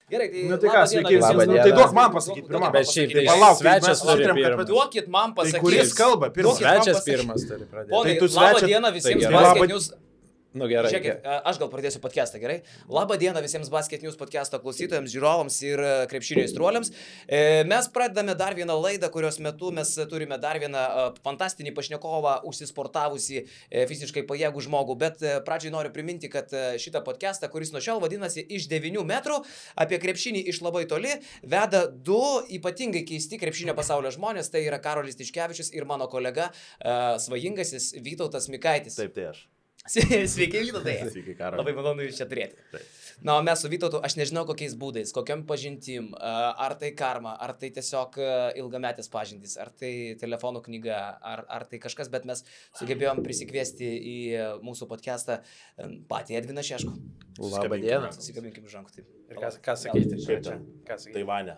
Gerai, tai... Nu tai ką, sveiki, tai duok man pasakyti pirmą. Bet šiaip tai palauk, svečias turi pirmas. Duokit man pasakyti. Tai kuris kalba pirmas? Svečias pirmas turi pradėti. Ponai, Tai tu labą svečias- dieną visiems Tai Basket News. Nu gerai. Žiūrėkit, aš gal pradėsiu podcastą, gerai? Labą dieną visiems Basket News podcast'o klausytojams, žiūrovams ir krepšinio aistruoliams. Mes pradedame dar vieną laidą, kurios metu mes turime dar vieną fantastinį pašnekovą, užsisportavusi fiziškai pajėgų žmogų. Bet pradžiai noriu priminti, kad šitą podcastą, kuris nuo šiol vadinasi Iš 9 metrų, apie krepšinį iš labai toli, veda du ypatingai keisti krepšinio pasaulio žmonės. Tai yra Karolis Tiškevičius ir mano kolega svajingasis Vytautas Mikaitis. Taip, tai aš. Sveiki, Vytautai. Sveiki, Karoli. Labai malonu jūs čia turėti. Taip. Na, o mes su Vytautu, aš nežinau kokiais būdais, kokiam pažintim, ar tai karma, ar tai tiesiog ilgametės pažintys, ar tai telefonų knyga, ar tai kažkas, bet mes sugebėjom prisikviesti į mūsų podcastą patį Edviną Šeškų. Labą dieną. Susikabinkim žankų. Ir ką sakyti? Kaip čia? Ką sakyti? Taivane.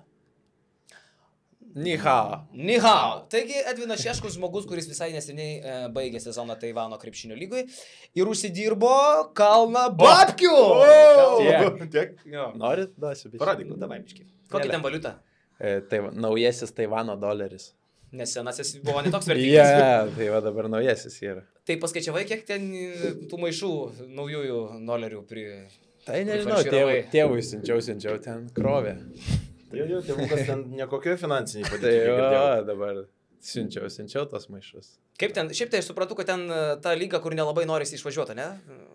Ni hao. Ni hao. Taigi Edvinas Šeškus žmogus, kuris visai neseniai baigė sezoną Taivano krepšinio lygoj ir užsidirbo kalną babkių. Tiek. Norit? Duosiu. Paradyk. Davai, biški. Kokia ten valiuta? Naujasis Taivano doleris. Nes senasis buvo netoks vertingas. Tai va dabar naujasis yra. Tai paskaičiavai, kiek ten tų maišų naujųjų dolerių Tai nežinau, tėvui siunčiau ten krovė. Jo, tėvukas ten nekokio finansiniai Tai padėti. dabar siunčiau tos maišus. Kaip ten, šiaip tai aš suprantu, kad ten ta lyga, kur nelabai norisi išvažiuoti, ne?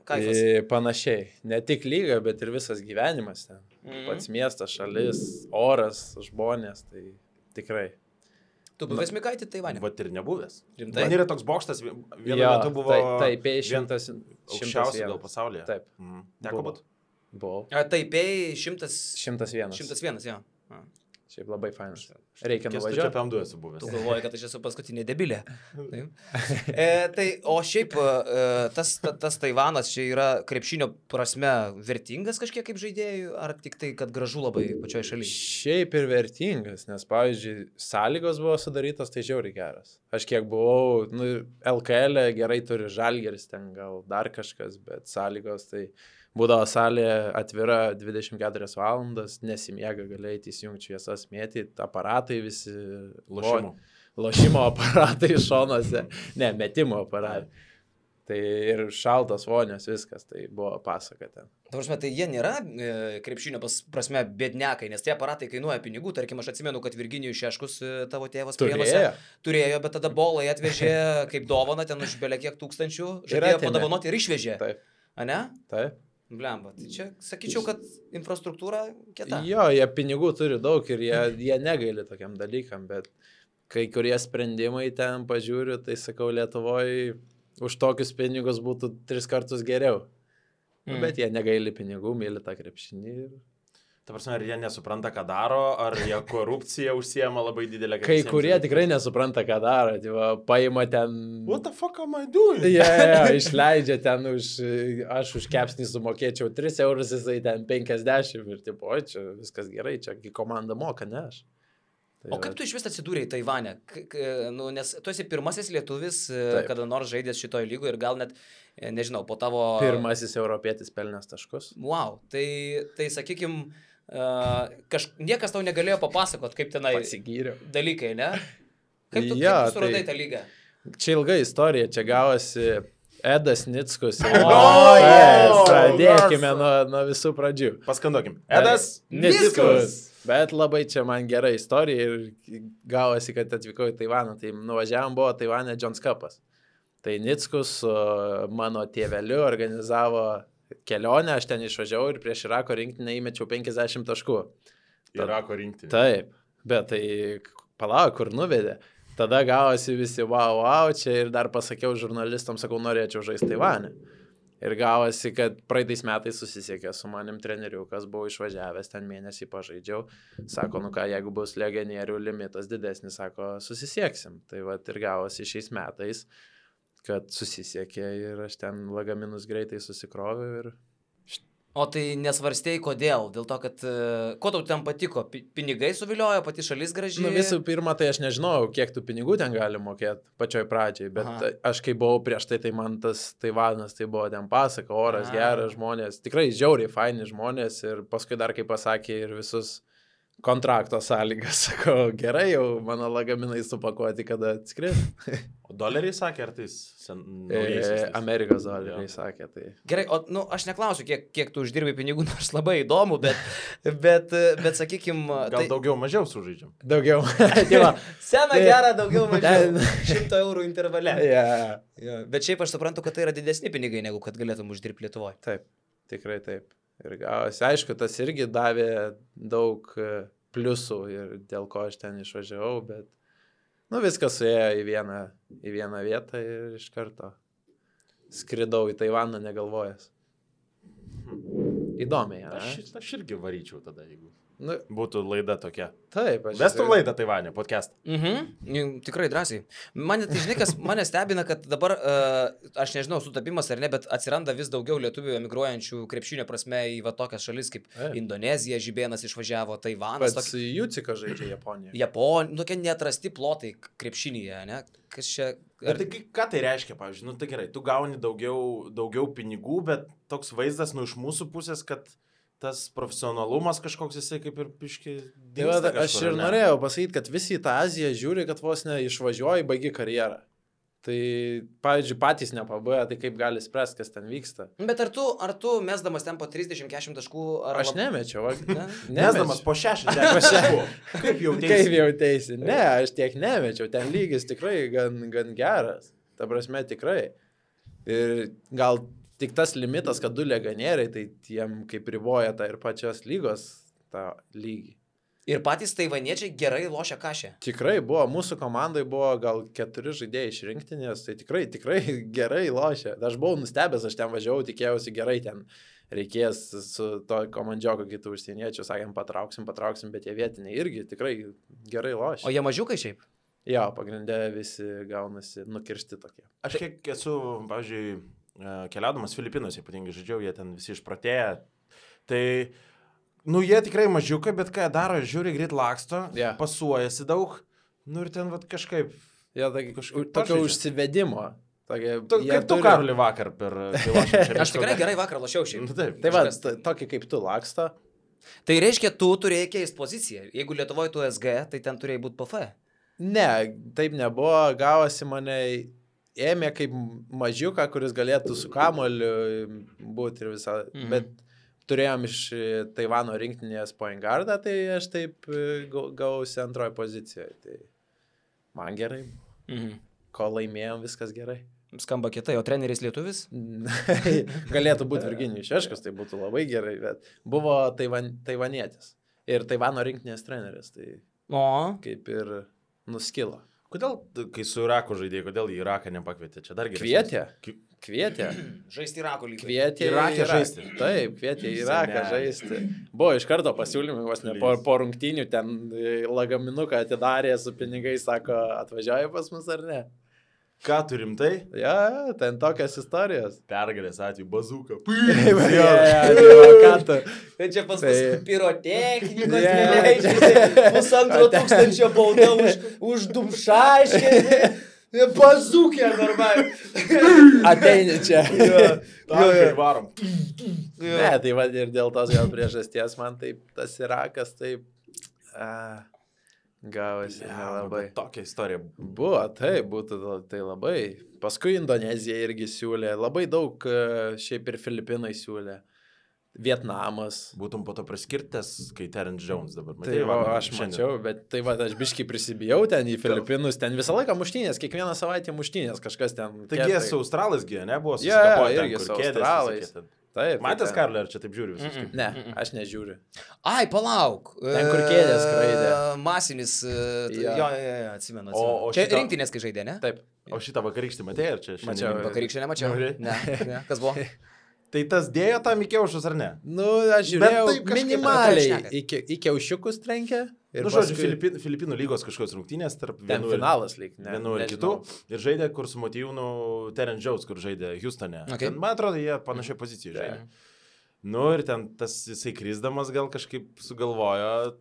Kaifas. Panašiai. Ne tik lyga, bet ir visas gyvenimas ten. Pats miestas, šalis, oras, žmonės, tai tikrai. Tu buvęs Mikaitį Taivane? Vat ir nebuvęs. Rimtai? Man yra toks bokštas, vienu metu buvo Taipei 100 aukščiausias gal pasaulyje. Taip. Teko būt? Buvau. Taipei 101. 101, jo. Šiaip labai fainas. Reikia Čia nuvažiuoti. apie M2 esu buvęs. Tu galvoji, kad aš esu paskutinė debilė. Tai, o šiaip tas Taivanas čia yra krepšinio prasme vertingas kažkiek kaip žaidėjų, ar tik tai, kad gražu labai pačioje šalyje? Šiaip ir vertingas, nes, pavyzdžiui, sąlygos buvo sudarytos, tai žiauriai geras. Aš kiek buvau, LKL gerai turi Žalgiris, ten gal dar kažkas, bet sąlygos tai... Būdavo salė atvira 24 valandas, nesimiega, galėjai įsijungti šviesas, mėtyti, aparatai visi, lošimo aparatai šonuose, ne, metimo aparatai. Tai ir šaltas vonios, viskas, tai buvo pasaka ten. Tavarsime, tai jie nėra krepšinio prasme bėdnekai, nes tie aparatai kainuoja pinigų, tarkim, aš atsimenu, kad Virginijus Šeškus, tavo tėvas turėjo, bet tada bolai atvežė kaip dovaną, ten už belia kiek tūkstančių, žadėjo padovanoti ir išvežė. Taip. A ne? Taip. Blemba, tai čia sakyčiau, kad infrastruktūra kieta. Jo, jie pinigų turi daug ir jie negaili tokiam dalykam, bet kai kurie sprendimai ten pažiūriu, tai sakau, Lietuvoje už tokius pinigus būtų 3 kartus geriau. Bet jie negaili pinigų, myli tą krepšinį. Ta prasme, ar jie nesupranta, ką daro, ar jie korupciją užsiema labai didelę. Kai kurie tikrai nesupranta, ką daro. Paima ten... What the fuck am I doing? Išleidžia ten aš už kepsnį sumokėčiau 3 eurus, jisai ten 50 ir tipo, čia viskas gerai, čia komanda moka, ne aš. O kaip tu iš vis atsidūrėjai Taivane? Nes tu esi pirmasis lietuvis, kada nors žaidęs šitoje lygoje ir gal net, nežinau, po tavo... Pirmasis europietis pelnęs taškus. Wow, tai sakykim, niekas tau negalėjo papasakot, kaip tenai dalykai, ne? Kaip tu suradai tą lygą? Čia ilga istorija, čia gavosi Edas Nickus. Pradėkime nuo visų pradžių. Paskanduokim. Edas Nickus. Bet labai čia man gera istorija ir gavosi, kad atvykau į Taivaną. Tai nuvažiavam, buvo Taivane Jones Cupas. Tai Nickus su mano tėveliu organizavo kelionę, aš ten išvažiavau ir prieš Irako rinktinę įmečiau 50 taškų. Irako rinktinė. Taip, bet tai palauk, kur nuvedė. Tada gavosi visi wow, čia ir dar pasakiau žurnalistams, sakau, norėčiau žaisti Taivane. Ir gavosi, kad praeitais metais susisiekė su manim treneriu, kas buvo išvažiavęs, ten mėnesį pažaidžiau. Sako, jeigu bus legionierių limitas didesnis, sako, susisieksim. Tai va ir gavosi šiais metais, kad susisiekė ir aš ten lagaminus greitai susikroviau ir... O tai nesvarstėjai kodėl? Dėl to, kad ko tau ten patiko? Pinigai suviliojo, pati šalis graži? Nu, visų pirma, tai aš nežinojau, kiek tų pinigų ten gali mokėti pačioj pradžiai, bet aš kai buvau prieš tai man tas Taivanas, tai buvo ten pasaka, oras geras, žmonės, tikrai žiauriai faini žmonės ir paskui dar, kaip pasakė, ir visus kontrakto sąlygas, sako, gerai, jau mano lagaminai supakuoti, kada atskris. O doleriai sakė, ar tai Amerikos doleriai sakė, tai. Gerai, o aš neklausiu, kiek tu uždirbi pinigų, nors labai įdomu, bet sakykim... Gal daugiau mažiau sužaidžiam? Daugiau. Sena gera, daugiau mažiau. 100 eurų intervale. Yeah. Bet šiaip aš suprantu, kad tai yra didesni pinigai, negu kad galėtum uždirbti Lietuvoje. Taip, tikrai taip. Ir gavosi, aišku, tas irgi davė daug pliusų ir dėl ko aš ten išvažiavau, bet viskas suėjo į vieną vietą ir iš karto skridau į Taivaną negalvojęs. Įdomiai, ne? Aš irgi varyčiau tada, jeigu būtų laida tokia. Taip, Vestum laidą Taivane, podcast. Tikrai drąsiai. Mane, tai žinai, kas mane stebina, kad dabar, aš nežinau, sutapimas ar ne, bet atsiranda vis daugiau lietuvių emigruojančių krepšinio prasme į tokias šalis kaip Indonezija, Žibėnas išvažiavo, Taivanas. Pats Jucika žaidžia Japonijoje. Japonija, tokie neatrasti plotai krepšinyje, ne? Kas čia... Bet tai ką tai reiškia, pavyzdžiui, tai gerai, tu gauni daugiau pinigų, bet toks vaizdas iš mūsų pusės, kad tas profesionalumas kažkoks jisai kaip ir piški dingsta kažkur. Aš ir norėjau pasakyti, kad visi į tą Aziją žiūri, kad vos ne išvažiuoji, baigi karjerą. Tai, pavyzdžiui, patys nepabėga, tai kaip gali spręsti, kas ten vyksta. Bet ar tu mesdamas ten po 30-40 taškų... Aš nemečiau. Mesdamas po 60 taškų. Kaip jautėsi? Ne, aš tiek nemečiau. Ten lygis tikrai gan geras. Ta prasme, tikrai. Ir gal... Tik tas limitas, kad 2 legionieriai, tai tiem kaip riboja tą ir pačios lygos tą lygį. Ir patys taivaniečiai gerai lošia kašę. Tikrai buvo, mūsų komandai buvo gal 4 žaidėjai iš rinktinės, tai tikrai gerai lošia. Aš buvau nustebęs, aš ten važiavau, tikėjausi gerai ten reikės su to komandžioku kitų užsieniečių, sakėm, patrauksim, bet jie vietiniai irgi tikrai gerai lošia. O jie mažiukai šiaip? Jo, pagrindė visi gaunasi nukirsti tokie. Aš kiek esu, pavyzdžiui, keliaudamas Filipinuose, ypatingai žaidžiau, jie ten visi išpratėję. Tai, jie tikrai mažiukai, bet ką jie daro, žiūri, greit laksto, pasuojasi daug, ir ten kažkaip... Tokio užsivedimo. Kaip tu, Karoli, vakar per lošimą? Aš tikrai gerai vakar lošiau šiaip. Tai tokį kaip tu laksto. Tai reiškia, tu turėjai keisti poziciją. Jeigu Lietuvoje tu SG, tai ten turėjai būti PF. Ne, taip nebuvo, gavosi mane... Ėmė kaip mažiuką, kuris galėtų su kamuoliu būti ir visą, bet turėjom iš Taivano rinktinės point guardą, tai aš taip gausi antroje pozicijoje. Tai man gerai. Ko laimėjom, viskas gerai. Skamba kietai, o treneris lietuvis? Galėtų būti Virginijus Šeškus, tai būtų labai gerai, bet buvo taivanietis ir Taivano rinktinės treneris, tai kaip ir nuskilo. Kodėl, kai su Iraku žaidėjai, kodėl į Iraką nepakvietė? Čia dar geriau. Kvietė. Žaisti Irako lygį. Kvietė Iraką žaisti. Taip, kvietė Iraką žaisti. Buvo iš karto pasiūlymai, vos ne po rungtynių ten lagaminuką atidarė su pinigais, sako, atvažiuoja pas mus ar ne? Ką turim tai? Ja, ten tokias istorijos. Pergalės atveju, bazuka. Tai čia pas mus pirotechnikos neleidžiasi, 1500 bauda už dumšaiškį, bazukė normaliai. Ateini čia. Tankai varom. Ne, tai va ir dėl tos gal priežasties man taip tas Irakas taip... Gavosi nelabai. Tokia istorija. Buvo, taip, būtų tai labai. Paskui Indonezija irgi siūlė, labai daug šiaip ir Filipinai siūlė. Vietnamas. Būtum po to priskirtas, kai Terence Jones dabar. Tai aš mačiau, bet tai va, aš biškai prisibijau ten į Filipinus, ten visą laiką muštynės, kiekvieną savaitę muštynės, kažkas ten. Taigi jie su Australais gyja, ne? Buvo susikapoję irgi su Australais. Taip. Matęs, Karli, ar čia taip žiūri visus? Ne, aš nežiūriu. Ai, palauk. Ten kur kėdės skraidė. Masinis. Jo, atsimenu. Čia rinktinės, kai žaidė, ne? Taip. O šitą vakarykštį matėjai, ar čia? Mačiau. Vakarykštį nemačiau. Ne. Kas buvo? Tai tas dėjo tam į kiaušus, ar ne? Aš žiūrėjau minimaliai. Į kiaušiukus trenkė. Nu, žodžiu, Filipinų lygos kažkokios rungtynės tarp vienų ir kitų. Ir žaidė, kur su Motyvūnu Terence Jones, kur žaidė Houstone. Man atrodo, jie panašiai pozicijoje žaidė. Nu ir ten tas jisai krisdamas gal kažkaip sugalvojo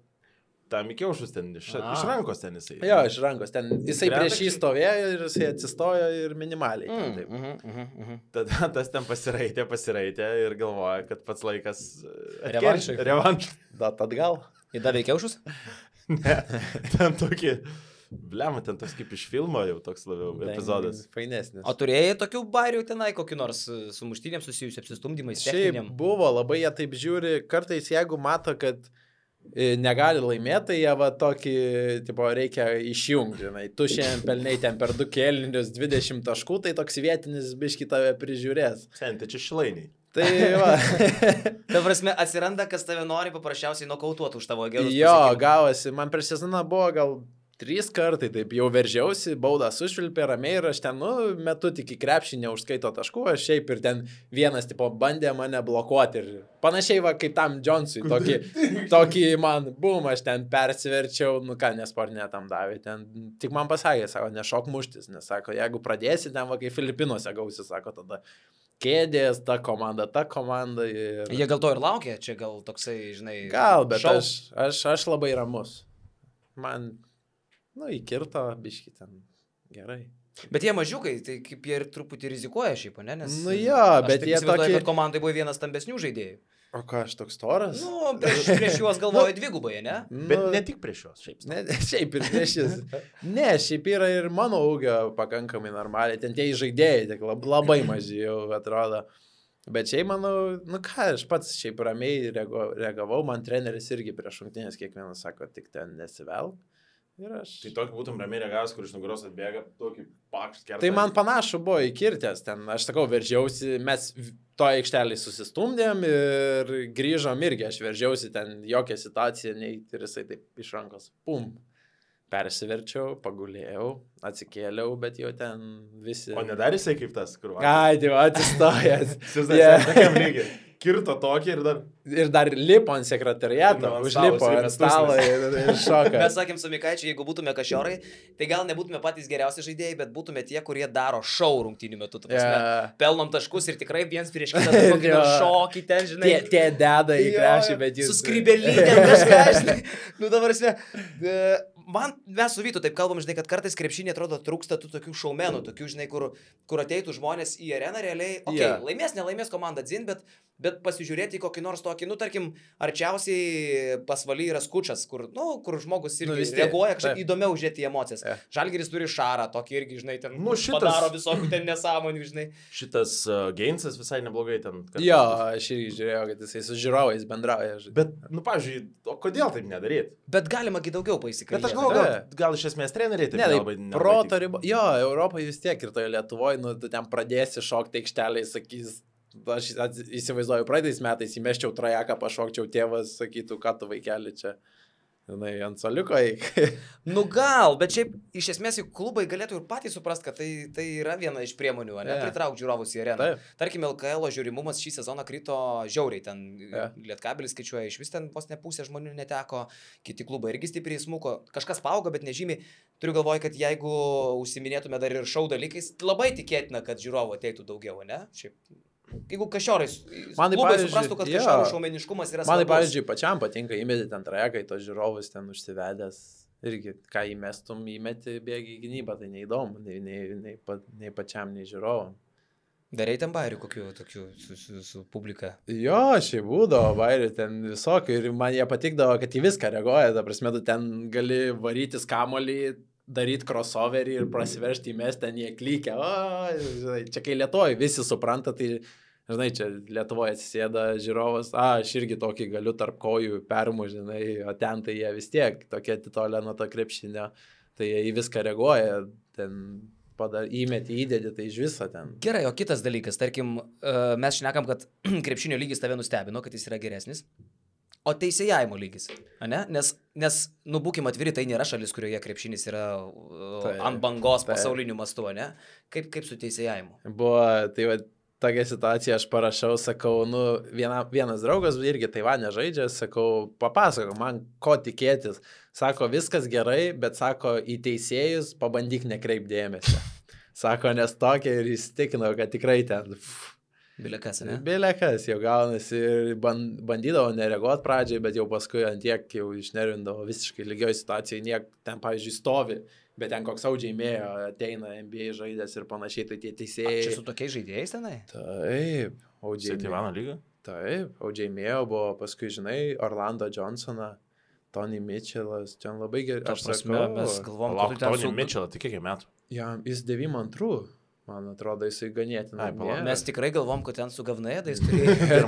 tam įkiaušus ten, iš rankos ten jisai. Jo, iš rankos ten. Jisai prieš jį stovėjo ir jisai atsistojo ir minimaliai. Tada tas ten pasiraitė ir galvoja, kad pats laikas revanšai. Dat atgal. Įdavė įkiaušus? Ne, ten tokį... Bliam, ten toks kaip iš filmo jau toks labiau epizodas. Fainesnis. O turėjai tokių bairių tenai, kokį nors su muštynėm susijusiu apsistumdymais? Šiaip buvo, labai jie taip žiūri, kartais jeigu mato, kad negali laimėti, tai jie va tokį, tipo, reikia išjungti, žinai. Tu šiandien pelnai ten per 2 kėlinius 20 taškų, tai toks vietinis biški tave prižiūrės. Senti, čia šilainiai. Tai va. Ta prasme, atsiranda, kas tave nori paprasčiausiai nokautuoti už tavo gerus. Jo, gavosi. Man prieš sezoną buvo gal 3 kartai, taip jau veržiausi, baudą sušvilpė ramiai ir aš ten, metu tik į krepšį neužskaito taškų, aš šiaip ir ten vienas, tipo, bandė mane blokuoti ir panašiai va kaip tam Jonesui, tokį man, aš ten persiverčiau, nesportinė tam davė, ten tik man pasakė, sako, nešok muštis, nes sako, jeigu pradėsi ten va kaip Filipinuose gausi, sako, tada kėdės, ta komanda ir... Jie gal to ir laukia, čia gal toksai, žinai... Gal, bet aš labai ramus. Man... įkirto, biški ten gerai. Bet jie mažiukai, tai kaip jie ir truputį rizikuoja šiaip, ne? Nes bet jie tokie... kad komandai buvo vienas stambesnių žaidėjų. O ką, aš toks storas? Prieš juos galvoju dvigubai, ne? Bet ne tik prieš juos, šiaip. Šiaip ir prieš jis. Ne, šiaip yra ir mano ūgio pakankamai normaliai. Ten tie žaidėjai, tik labai maži jau atrodo. Bet šiaip manau, aš pats šiaip ramiai reagavau, man treneris irgi prieš rungtynės kiekvienas sako, tik ten nesivelk. Tai tokį būtum ramiai reagavęs, kur iš nugaros atbėga, tokį pakšt kertą. Tai man panašu buvo įkirtęs ten, aš sakau, veržiausi, mes to aikštelį susistumdėm ir grįžom irgi, aš veržiausi ten, jokia situacija, nei ir jisai taip iš rankos, pum, persiverčiau, pagulėjau, atsikėliau, bet jau ten visi... O nedarė jisai kaip tas, kur vakar? Ai, tai atsistojęs. Tokiam lygiai. Kirto tokį ir dar lipo ant sekretariato, užlipo ant stalo ir šoka. Mes sakėm su Mikaičiu, jeigu būtume Kašiorai, tai gal nebūtume patys geriausi žaidėjai, bet būtume tie, kurie daro šou rungtynių metu. Pelnom taškus ir tikrai viens prieš kitą kokį šokį ten, žinai. Tie deda į krepšį, bet jūs... Su skrybelytėm kažką, žinai. Dabar mes su Vytu taip kalbam, žinai, kad kartais krepšinė atrodo trūksta tų tokių šaumenų, tokių, žinai, kur ateitų žmonės į areną realiai, laimės, nelaimės komanda dzin, bet pasižiūrėti į kokį nors tokį, tarkim, arčiausiai pasvaly yra Skučas, kur žmogus irgi reaguoja kažkaip įdomiau žiūrėti į emocijas. Žalgiris turi Šarą, tokį irgi, žinai, ten padaro visokių ten nesąmonių, žinai. Šitas Geinsas visai neblogai ten. Jo, aš irgi žiūrėjau, kad jisai su žiūrovais bendrauja. Bet, pavyzdžiui, o kodėl taip nedaryti? Bet galima daugiau pasikalbėti. Bet aš galvoju, gal iš esmės treneriai taip nelabai. Proto riba. Jo, Europoje vis tiek ir toje Lietuvoje, tu ten pradėsi šokti aikštelėje, sakys, aš įsivaizduoju, praeitais metais įmeščiau trajeką, pašokčiau, tėvas sakytų, ką tu vaikeli čia. Žinai, ant soliuko eik. Gal, bet šiaip iš esmės klubai galėtų ir patys suprast, kad tai yra viena iš priemonių, ne, pritraukti žiūrovus į areną. Tarkim, LKL žiūrimumas šį sezoną krito žiauriai, ten Lietkabelis skaičiuoja, iš vis ten vos ne pusė žmonių neteko, kiti klubai irgi stipriai smuko, kažkas paaugo, bet nežymiai. Turiu galvoje, kad jeigu užsiminėtume dar ir šou dalykais, labai tikėtina, kad žiūrovų ateitų daugiau, ne? Šiaip. Jeigu Kašiorai, klubai suprastų, kad Kašiorų šaumeniškumas yra svarbus. Man, pavyzdžiui, pačiam patinka įmeti ten trajeką, į tos žiūrovus ten užsivedęs. Irgi, ką įmestum, įmeti bėgi į gynybą, tai neįdomu, nei pačiam, nei žiūrovam. Darai ten bairių kokių tokių su publika? Jo, šiaip būdavo bairių ten visokių ir man jie patikdavo, kad į viską reaguoja, ta prasme, tu ten gali varytis kamolį, daryti crossoverį ir prasiveršti į mes, ten jie klykia. Čia kai Lietuvoje visi supranta, tai, žinai, čia Lietuvoje atsisėda žiūrovas, aš irgi tokį galiu tarp kojų permu, žinai, o ten tai jie vis tiek tokie atitolę nuo to krepšinio, tai jie į viską reaguoja, ten įmeti, įdėdi, tai iš viso ten. Gerai, o kitas dalykas, tarkim, mes šnekam, kad krepšinio lygis tave nustebino, kad jis yra geresnis. O teisėjavimo lygis, ne? Nes būkim atviri, tai nėra šalis, kurioje krepšinis yra ant bangos pasauliniu mastu, ne? Kaip su teisėjavimu? Buvo, tai va, tokia situacija, aš parašau, sakau, vienas draugas irgi Taivane žaidžia, sakau, papasakok man, ko tikėtis. Sako, viskas gerai, bet sako, į teisėjus pabandyk nekreip dėmesio. Sako, nes tokia ir įsitikinau, kad tikrai ten... Bilekas, ne? Bilekas jau gaunasi ir bandydavo nereaguoti pradžiai, bet jau paskui ant tiek jau išnervindavo visiškai lygioj situacijai, ten, pavyzdžiui, stovi, bet ten koks audžiaimėjo ateina NBA žaidės ir panašiai, tai tie teisėjai. Čia su tokiais žaidėjais tenai? Taip, audžiaimėjo. Taivano lyga? Taip, audžiaimėjo buvo, paskui, žinai, Orlando Johnsoną. Tony Mitchellas, ten labai gerai. Aš prasme, mes galvom, kad Tony Mitchellą, tai kiek metų? Jis 92, man atrodo, jisai ganėtinai. Mes tikrai galvom, kad ten su Gavnaėdais turėjo.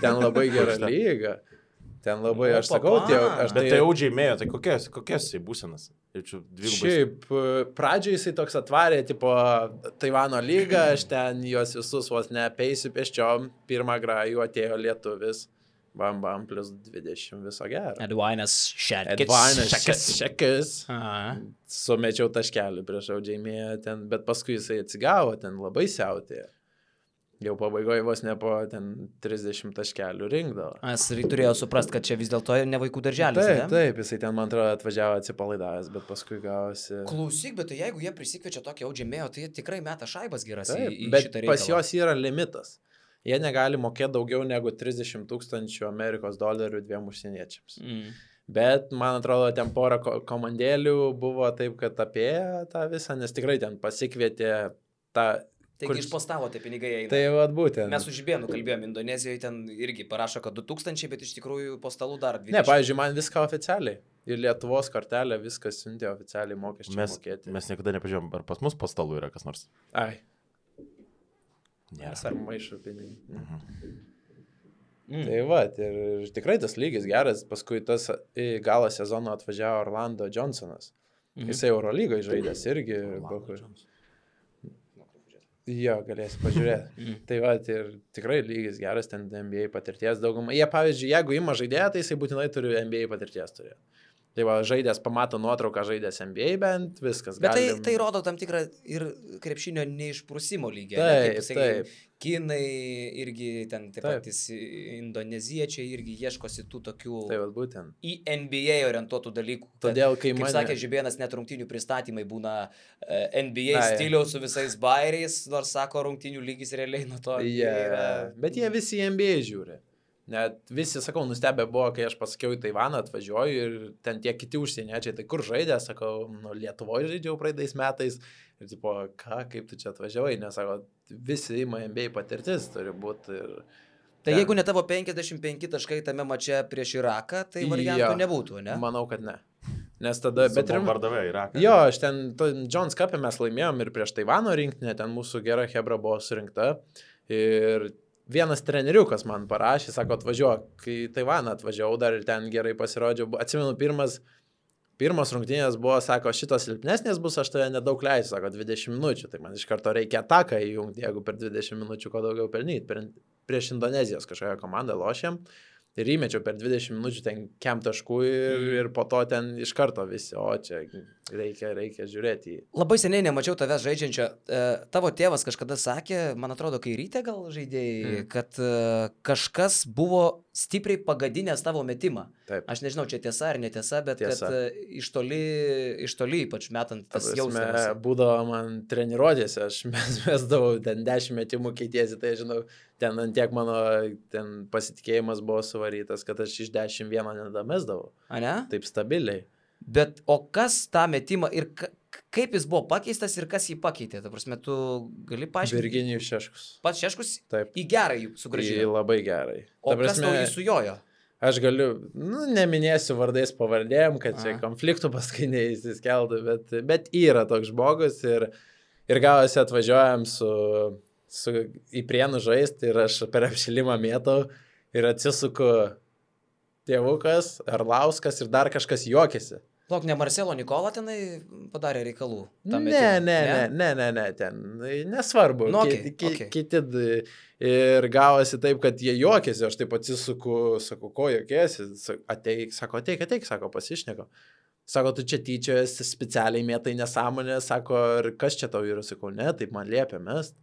ten labai gera lyga. Ten labai, aš sakau, bet tai audžiaimėjo, tai kokias jisai būsenas? Šiaip, pradžioje jisai toks atvarė, tipo, Taivano lygą, aš ten juos visus vos neapeisiu pėsčiom, pirmą grajų atėjo lietuvis. Bam, plus 20 viso gero. Edvainas Šekis. Sumečiau taškelį prieš audžiaimėją ten, bet paskui jisai atsigavo, ten labai siautėjo. Jau pabaigoje vos ne po ten 30 taškelių rinkdavo. Jis turėjo suprast, kad čia vis dėlto ne vaikų darželis. Taip, jisai ten, man atrodo, atvažiavo atsipalaidavęs, bet paskui gavosi. Klausyk, bet tai jeigu jie prisikviečia tokį audžiaimėją, tai jie tikrai meta šaibas geras į šitą reikalą. Bet pas juos yra limitas. Jie negali mokėti daugiau negu 30 000 Amerikos dolerių 2 užsieniečiams. Bet, man atrodo, ten porą komandėlių buvo taip, kad apėjo tą visą, nes tikrai ten pasikvietė tą... Taigi išpostavo tie pinigai eina. Tai vat būtent. Mes su Žibėnu kalbėjom, Indonezijoje ten irgi parašo, kad 2000, bet iš tikrųjų po stalų dar 20. Ne, pavyzdžiui, man viską oficialiai. Ir Lietuvos kortelė viskas siuntė oficialiai mokesčių mokėti. Mes niekada nepažiūrėjom, ar pas mus po stalų yra kas nors. Ai. Nėra. Ar maišo pinigų. Tai va, ir tikrai tas lygis geras, paskui tas į galą sezono atvažiavo Orlando Johnsonas. Jisai Eurolygoje žaidęs irgi. Jo, galėsi pažiūrėti. Tai va, ir tikrai lygis geras, ten NBA patirties daugumą. Jie, pavyzdžiui, jeigu ima žaidėją, tai jisai būtinai turi NBA patirties turėti. Tai va, žaidės pamato nuotrauką, žaidės NBA bent, viskas. Bet tai rodo tam tikrą ir krepšinio neišprusimo lygį. Taip. Kinai irgi ten taip patys indoneziečiai irgi ieškosi tų tokių į NBA orientuotų dalykų. Todėl, kai kaip sakė Žibėnas, net rungtynių pristatymai būna NBA stiliaus su visais bairiais, nors sako, rungtynių lygis realiai nuo to yra. Bet jie visi į NBA žiūri. Net visi, sakau, nustebę buvo, kai aš pasakiau į Taivaną atvažiuoju ir ten tie kiti užsieniečiai, tai kur žaidė, sakau, Lietuvoje žaidžiau praeitais metais ir tipo, kaip tu čia atvažiavai, nes sako, visi ima NBA patirtis turi būti. Tai jeigu ne tavo 55 taškai tame mače prieš Iraką, tai variantų nebūtų, ne? Manau, kad ne. Nes tada... Bombardavė Iraką. Jo, aš ten, Jones Cup'e mes laimėjom ir prieš Taivano rinktinę, ten mūsų gera hebra buvo surinkta ir... Vienas treneriukas man parašė, sako, atvažiuok, kai Taivaną atvažiavau dar ir ten gerai pasirodžiau. Atsimenu, pirmas rungtynės buvo, sako, šitos silpnesnės bus, aš tave nedaug leisiu, sako, 20 minučių. Tai man iš karto reikia ataką įjungti, jeigu per 20 minučių ko daugiau pelnyti. Prieš Indonezijos kažkokią komandą lošėm ir įmečiau per 20 minučių ten kem taškų ir po to ten iš karto visi, o čia reikia žiūrėti. Labai seniai nemačiau tavęs žaidžiančio. Tavo tėvas kažkada sakė, man atrodo, kai ryte gal žaidėjai, kad kažkas buvo stipriai pagadinęs tavo metimą. Taip. Aš nežinau, čia tiesa ar netiesa, bet tiesa. Kad iš toli ypač metant tas jausmas. Būdavo man treniruotėse, aš mesdavau ten 10 metimų keitiesi, tai žinau, ten antiek mano ten pasitikėjimas buvo suvarytas, kad aš iš 10 vieną nedamesdavau. A ne? Taip stabiliai. Bet o kas tą metimą ir kaip jis buvo pakeistas ir kas jį pakeitė? Ta prasme, tu gali paaiškinti? Virginijus Šeškus. Pats Šeškus? Taip. Į gerai jų sugrąžino? Į labai gerai. O kas tau jį sujojo? Aš galiu, neminėsiu vardais pavardėm, kad čia konfliktų paskui neįsiskeltų, bet yra toks žmogus ir gavosi atvažiuojam į Prienų žaisti ir aš per apšilimą mėtau ir atsisuku tėvukas, Arlauskas ir dar kažkas juokėsi. Lauk, ne Marcelo Nikola tenai padarė reikalų? Ne, ten nesvarbu. Kiti ir gavosi taip, kad jie juokėsi, aš taip atsisuku, sakau, ko juokėsi, ateik, sako, pasišneko. Sako, tu čia tyčiojasi, specialiai mėtai nesąmonę, sako, ir kas čia tau yra, sakau, ne, taip man liepia mest.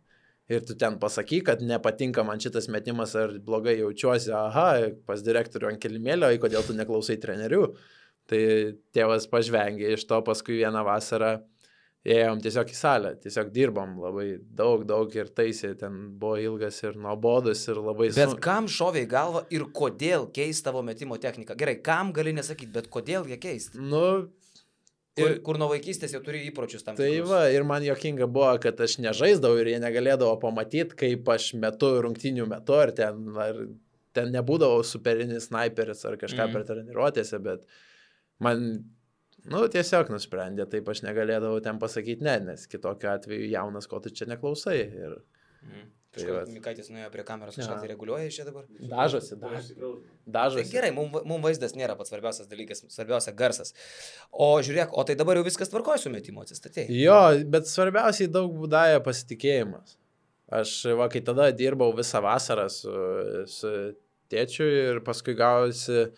Ir tu ten pasakyk, kad nepatinka man šitas metimas ar blogai jaučiuosi, pas direktorių ant kilimėlio, kodėl tu neklausai trenerių. Tai tėvas pažvengė iš to, paskui vieną vasarą ėjom tiesiog į salę, tiesiog dirbom labai daug ir taisė, ten buvo ilgas ir nuobodus ir labai Bet kam šovė į galvą ir kodėl keist tavo metimo techniką? Gerai, kam gali nesakyti, bet kodėl ją keisti? Nu, kur nuo vaikystės jau turi įpročius tam tai tikrus. va, ir man juokinga buvo, kad aš nežaisdavau ir jie negalėdavo pamatyti, kaip aš metu rungtynių metu, ar ten nebūdavo superinis sniperis ar kažką per treniruotėse, bet man, tiesiog nusprendė, taip aš negalėdavau ten pasakyti ne, nes kitokiu atveju jaunas, ko tu čia neklausai. Ir... Kažkaip Mikaitis nuėjo prie kameros, kažką tai reguliuoja čia dabar? Dažosi. Tai gerai, mums vaizdas nėra pats svarbiausias dalykas, svarbiausia garsas. O žiūrėk, o tai dabar jau viskas tvarkoja su metimu, atsistatėjai? Jo, bet svarbiausiai daug būdąja pasitikėjimas. Aš, kai tada dirbau visą vasarą su tėčiu ir paskui gausi,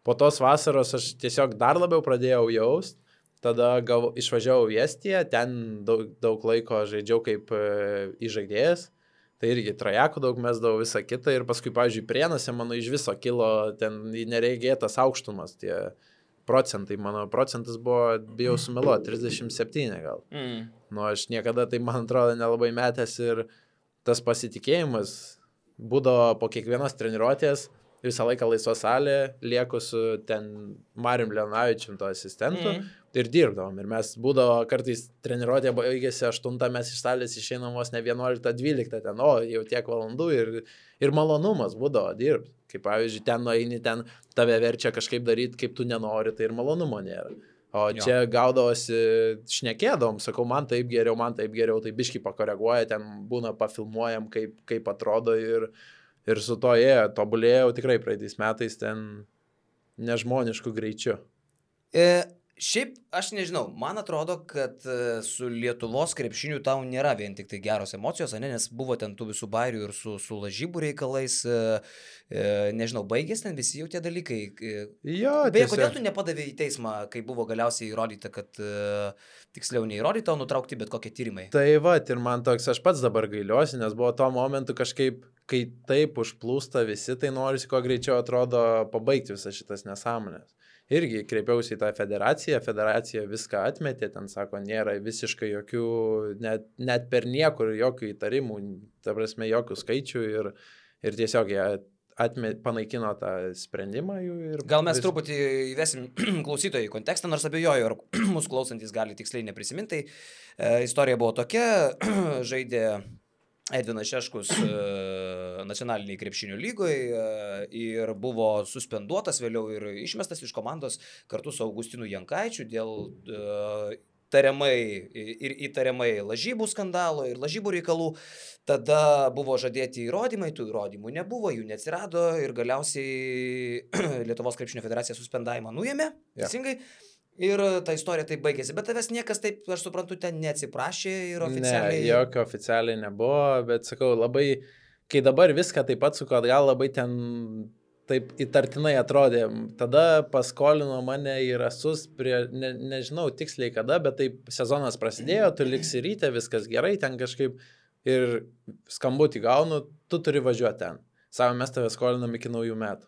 po tos vasaros aš tiesiog dar labiau pradėjau jaust. Tada išvažiavau į Estiją, ten daug laiko žaidžiau kaip įžaidėjas. Tai irgi trajekų daug mesdavau visą kitą ir paskui, pavyzdžiui, Prienose mano iš viso kilo ten neregėtas aukštumas, tie procentai, mano procentas buvo, bijau sumeluoti, 37 gal. Aš niekada tai, man atrodo, nelabai metęs ir tas pasitikėjimas būdavo po kiekvienos treniruotės, visą laiką laisva salė, lieku su ten Marium Leonavičium to asistentu ir dirbdavom. Ir mes būdavo kartais treniruotė baigėsi 8, mes iš salės išeinam vos ne 11-12 ten, jau tiek valandų ir malonumas būdavo dirbti. Kaip pavyzdžiui, ten nueini, ten tave verčia kažkaip daryti, kaip tu nenori, tai ir malonumo nėra. O čia gaudavosi, šnekėdavom, sakau, man taip geriau, tai biškį pakoreguoja, ten būna pafilmuojam, kaip atrodo ir su to tobulėjau tikrai praeitais metais ten nežmonišku greičiu. Šiaip, aš nežinau, man atrodo, kad su Lietuvos krepšiniu tau nėra vien tik tai geros emocijos, nes buvo ten tų visų bairių ir su lažybų reikalais, nežinau, baigės ten visi jau tie dalykai. Jo, beje, kodėl tu nepadavė į teismą, kai buvo galiausiai įrodyta, kad tiksliau neįrodyta, o nutraukti bet kokie tyrimai? Tai va, ir man toks, aš pats dabar gailiuosi, nes buvo tuo momentu kažkaip, kai taip užplūsta visi, tai norisi kuo greičiau atrodo pabaigti visas šitas nesąmonės. Irgi kreipiausi į tą federacija viską atmetė, ten sako, nėra visiškai jokių, net per niekur jokių įtarimų, ta prasme, jokių skaičių ir tiesiog jie panaikino tą sprendimą jų. Gal mes truputį įvesim klausytojų į kontekstą, nors abejoju, ar mūsų klausantis gali tiksliai neprisiminti. Istorija buvo tokia, žaidė Edvinas Šeškus nacionaliniai krepšinio lygoje ir buvo suspenduotas vėliau ir išmestas iš komandos kartu su Augustinu Jankaičiu dėl įtariamai lažybų skandalo ir lažybų reikalų. Tada buvo žadėti įrodymai, tų įrodymų nebuvo, jų neatsirado ir galiausiai Lietuvos krepšinio federacija suspendavimą nuėmė, teisingai. Ir ta istorija taip baigėsi, bet tavęs niekas taip, aš suprantu, ten neatsiprašė ir oficialiai... Ne, jokio oficialiai nebuvo, bet sakau, labai, kai dabar viską taip pat suko atgal, labai ten taip įtartinai atrodė. Tada paskolino mane į Rasus, nežinau tiksliai kada, bet taip sezonas prasidėjo, tu liksi ryte, viskas gerai, ten kažkaip ir skambutį gaunu, tu turi važiuoti ten. Savo, mes tave skolinam iki naujų metų.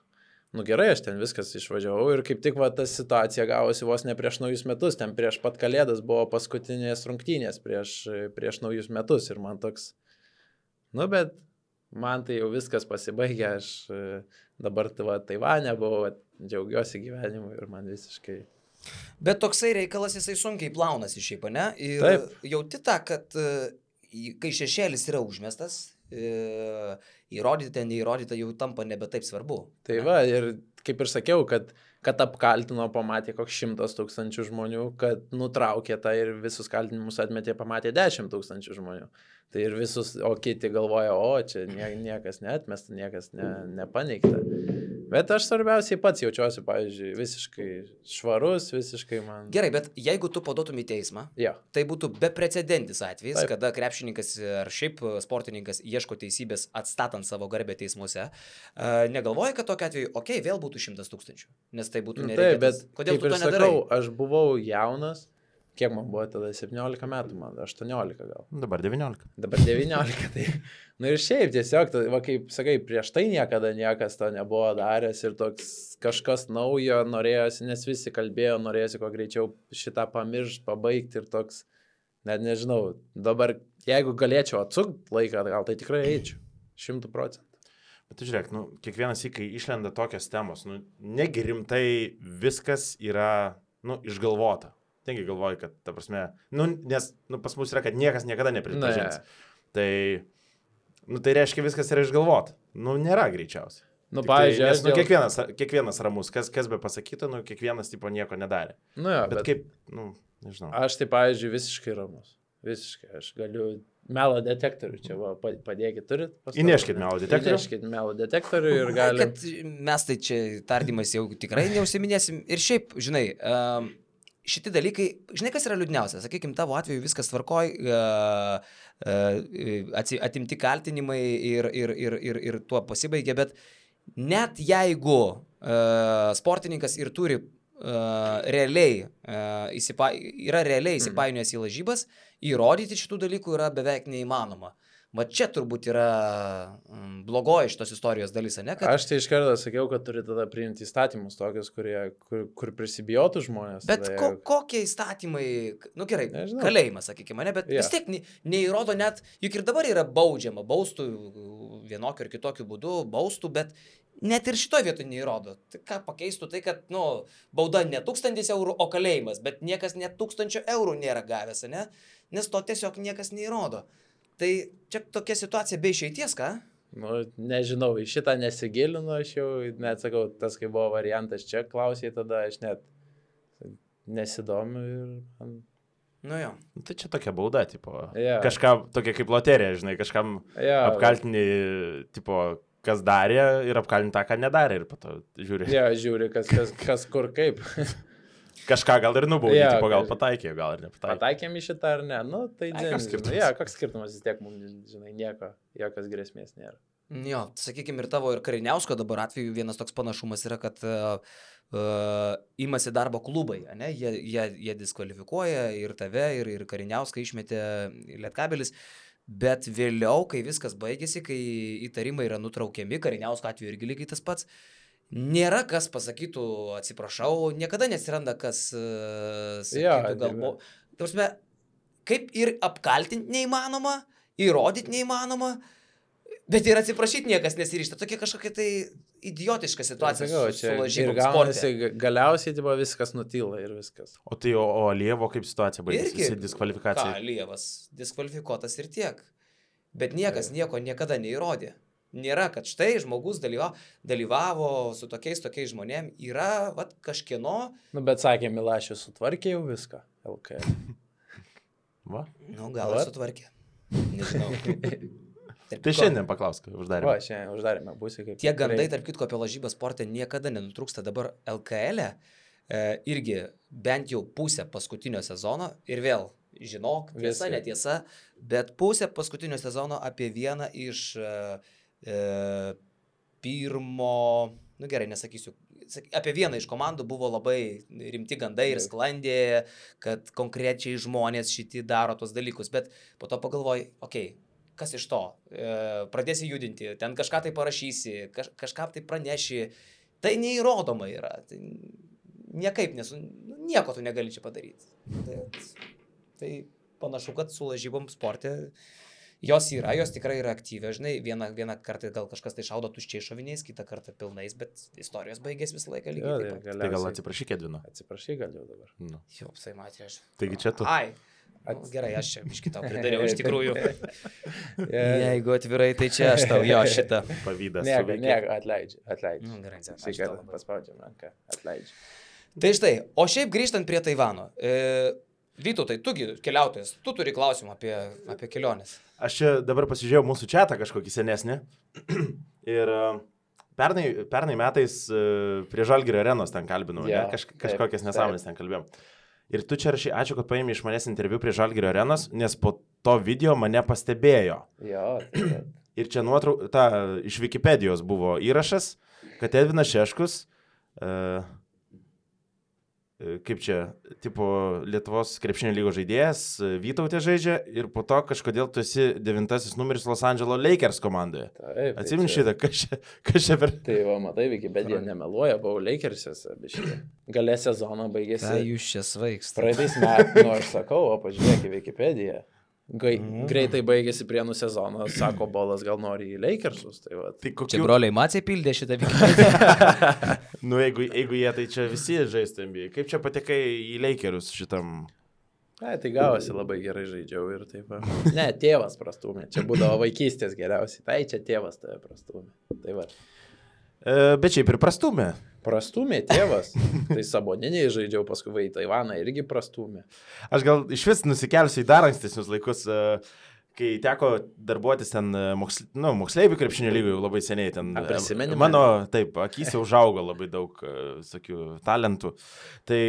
Gerai, aš ten viskas išvažiavau ir kaip tik ta situacija gavosi vos ne prieš naujus metus, ten prieš pat Kalėdas buvo paskutinės rungtynės prieš naujus metus ir man toks, bet man tai jau viskas pasibaigė, aš dabar Taivane buvau, džiaugiuosi gyvenimu ir man visiškai... Bet toksai reikalas jisai sunkiai plaunasi šiaip, ne? Ir taip. Jauti tą, kad kai šešėlis yra užmestas, įrodyta, neįrodyta jau tampa nebe taip svarbu. Tai va, ir kaip ir sakiau, kad apkaltino, pamatė koks 100 000 žmonių, kad nutraukė tą ir visus kaltinimus atmetė, pamatė 10 000 žmonių. Tai ir visus, o kiti galvoja, čia niekas neatmesta, niekas nepaneigta. Bet aš svarbiausiai pats jaučiuosi, pavyzdžiui, visiškai švarus, visiškai man... Gerai, bet jeigu tu paduotum į teismą, tai būtų beprecedentis atvejis, kada krepšininkas ar šiaip sportininkas ieško teisybės atstatant savo garbę teismuose. Negalvoji, kad tokiu atveju, vėl būtų 100 000, nes tai būtų nereikėtas. Kodėl tu to nedarai? Aš buvau jaunas. Kiek man buvo tada? 17 metų, man 18 gal. Dabar 19. Dabar 19, tai... ir šiaip tiesiog, kaip sakai, prieš tai niekada niekas to nebuvo daręs ir toks kažkas naujo norėjosi, nes visi kalbėjo, norėjosi kuo greičiau šitą pamiršti, pabaigti ir toks Net nežinau, dabar jeigu galėčiau atsukti laiką, gal tai tikrai eičiau. 100%. Bet tu žiūrėk, kiekvienas įkai išlenda tokios temos, negi rimtai viskas yra, išgalvota. Tengi galvoju, kad, ta prasme, nes, pas mus yra, kad niekas niekada nepripažins. Tai reiškia viskas yra išgalvota. Nėra greičiausiai. Pavyzdžiui, kiekvienas ramus, kas be pasakytų, kiekvienas tipo nieko nedarė. Bet kaip, nežinau. Aš tai, pavyzdžiui, visiškai ramus. Visiškai. Aš galiu melo detektorių čia, padėkit, turit? Įneškit melo detektorių. Įneškit melo detektorių ir galim. Kad mes tai čia tardymais jau tikrai neužsiminėsim. Ir šiaip, žinai, šitie dalykai, žinai, kas yra liūdniausia? Sakykime, tavo atveju viskas tvarkoj, atimti kaltinimai ir tuo pasibaigė, bet net jeigu sportininkas ir turi realiai įsipainiojęs į lažybas, įrodyti šitų dalykų yra beveik neįmanoma. Va čia turbūt yra blogoji šitos istorijos dalis, ne? Kad... Aš tai iš karto sakiau, kad turi tada priimti įstatymus tokius, kur prisibijotų žmonės. Bet kokie įstatymai, gerai, nežinau. Kalėjimas, sakykime, ne, bet vis tiek neįrodo net, juk ir dabar yra baudžiama, baustų vienokiu ir kitokiu būdu, baustų, bet net ir šitoje vietoje neįrodo. Tai ką pakeistų tai, kad, bauda ne 1000 eurų, o kalėjimas, bet niekas net 1000 eurų nėra gavęs, ne? Nes to tiesiog niekas neįrodo. Tai čia tokia situacija be išeities, ką? Nežinau, į šitą nesigilinu, aš jau net sakau, tas kai buvo variantas čia, klausė, tada aš net nesidomiu ir... Jo. Tai čia tokia bauda, tipo, kažką tokia kaip loterija, žinai, kažkam apkaltini, tipo, kas darė ir apkaltinti tą, ką nedarė ir po to žiūri. Žiūri, kas kur kaip. Kažką gal ir nubaudė, tipo, gal pataikė, gal ir nepataikė. Pataikėm į šitą ar ne? Tai koks skirtumas? Koks skirtumas, vis tiek mums, žinai, jokios grėsmės nėra. Jo, sakykime, ir tavo ir Kariniausko dabar atveju vienas toks panašumas yra, kad imasi darbo klubai, ne? Jie diskvalifikuoja ir tave, ir Kariniauską išmetė Lietkabelis. Bet vėliau, kai viskas baigėsi, kai įtarimai yra nutraukiami, Kariniausko atveju irgi lygiai tas pats, nėra kas pasakytų, atsiprašau, niekada nesiranda kas sakytų galbūt. Tarsime, kaip ir apkaltinti neįmanoma, įrodyti neįmanoma, bet ir atsiprašyti niekas nesiryžta. Tokia kažkokia tai idiotiška situacija su lažybom sporte. Galiausiai tipo, viskas nutyla ir viskas. O tai Alievo kaip situacija baigėsi? Jis diskvalifikacija. Alievas diskvalifikuotas ir tiek. Bet niekas nieko niekada neįrodė. Nėra, kad štai žmogus dalyvavo su tokiais žmonėm. Yra kažkieno... Bet sakė, Milašius sutvarkė jau viską. LKL. Va? Gal sutvarkė. Nežinau. Tai šiandien paklausk, uždarėme. Šiandien uždarėme, būsi kaip... Tie gandai, tarp kitko, apie lažybą sportą niekada nenutrūksta. Dabar LKL irgi bent jau pusę paskutinio sezono ir vėl, žinok, tiesa, netiesa, bet pusę paskutinio sezono apie vieną iš pirmo, gerai, nesakysiu, apie vieną iš komandų buvo labai rimti gandai ir sklandė, kad konkrečiai žmonės šiti daro tos dalykus, bet po to pagalvoji, kas iš to? Pradėsi judinti, ten kažką tai parašysi, kažką tai praneši, tai neįrodoma yra, tai niekaip nieko tu negali čia padaryti. Tai panašu, kad su lažybom sporte jos yra, jos tikrai yra aktyvios, žinai, vieną kartą gal kažkas tai šaudo tuščiai šoviniais, kitą kartą pilnais, bet istorijos baigės visą laiką lygiai. Tai gal atsiprašyk, Edvino? Atsiprašy gal jau dabar. Jau, tai matė aš. Taigi čia tu. Gerai, aš čia iš kitą pridariau iš tikrųjų. Jeigu atvirai, tai čia aš tau, šitą. Pavydas. Atleidžiu. Gerai, paspaudžiam ranką, atleidžiu. Tai štai, o šiaip grįžtant prie Taivano. Vytautai, tugi keliautojas, tu turi klausimą apie keliones. Aš čia dabar pasižiūrėjau mūsų chatą kažkokį senesnį ir pernai metais prie Žalgirio arenos ten kalbinau, kažkokias nesąmonės ten kalbėjom. Ir tu čia rašai, ačiū, kad paėmė iš manęs interviu prie Žalgirio arenos, nes po to video mane pastebėjo. Ir čia iš Wikipedijos buvo įrašas, kad Edvinas Šeškus kaip čia, tipo, Lietuvos krepšinio lygos žaidėjas, Vytautė žaidžia ir po to kažkodėl tu esi 9 numeris Los Angeles Lakers komandoje. Atsimeni šitą, kas čia per... Tai va, matai, Wikipedia nemeluoja, buvau Lakersiuose, biškai. Gale sezono baigėsi. Tai jūs čia svaikstate. Praeitais metais, aš sakau, o pažiūrėk į Wikipediją. Greitai baigėsi Prienų sezoną, sako Bolas, gal nori į Lakersus. Tai kokiu... Čia broliai Maciai pildė šitą Wikipediją. Nu, jeigu jie, tai čia visi žaistų NBA. Kaip čia patekai į Lakerius šitam... Tai gavosi labai gerai žaidžiau ir taip. Ne, tėvas prastumė. Čia būdavo vaikystės geriausiai. Tai čia tėvas tave prastumė. Tai va. Bet šiaip ir prastumė. Prastumė tėvas. Tai Saboniniai žaidžiau, paskui į Taivaną irgi prastumė. Aš gal iš vis nusikelsiu į dar ankstesnius laikus, kai teko darbuotis ten moksleivių krepšinio lygoje labai seniai. Ten, mano, taip, akys jau užaugo labai daug tokių talentų. Tai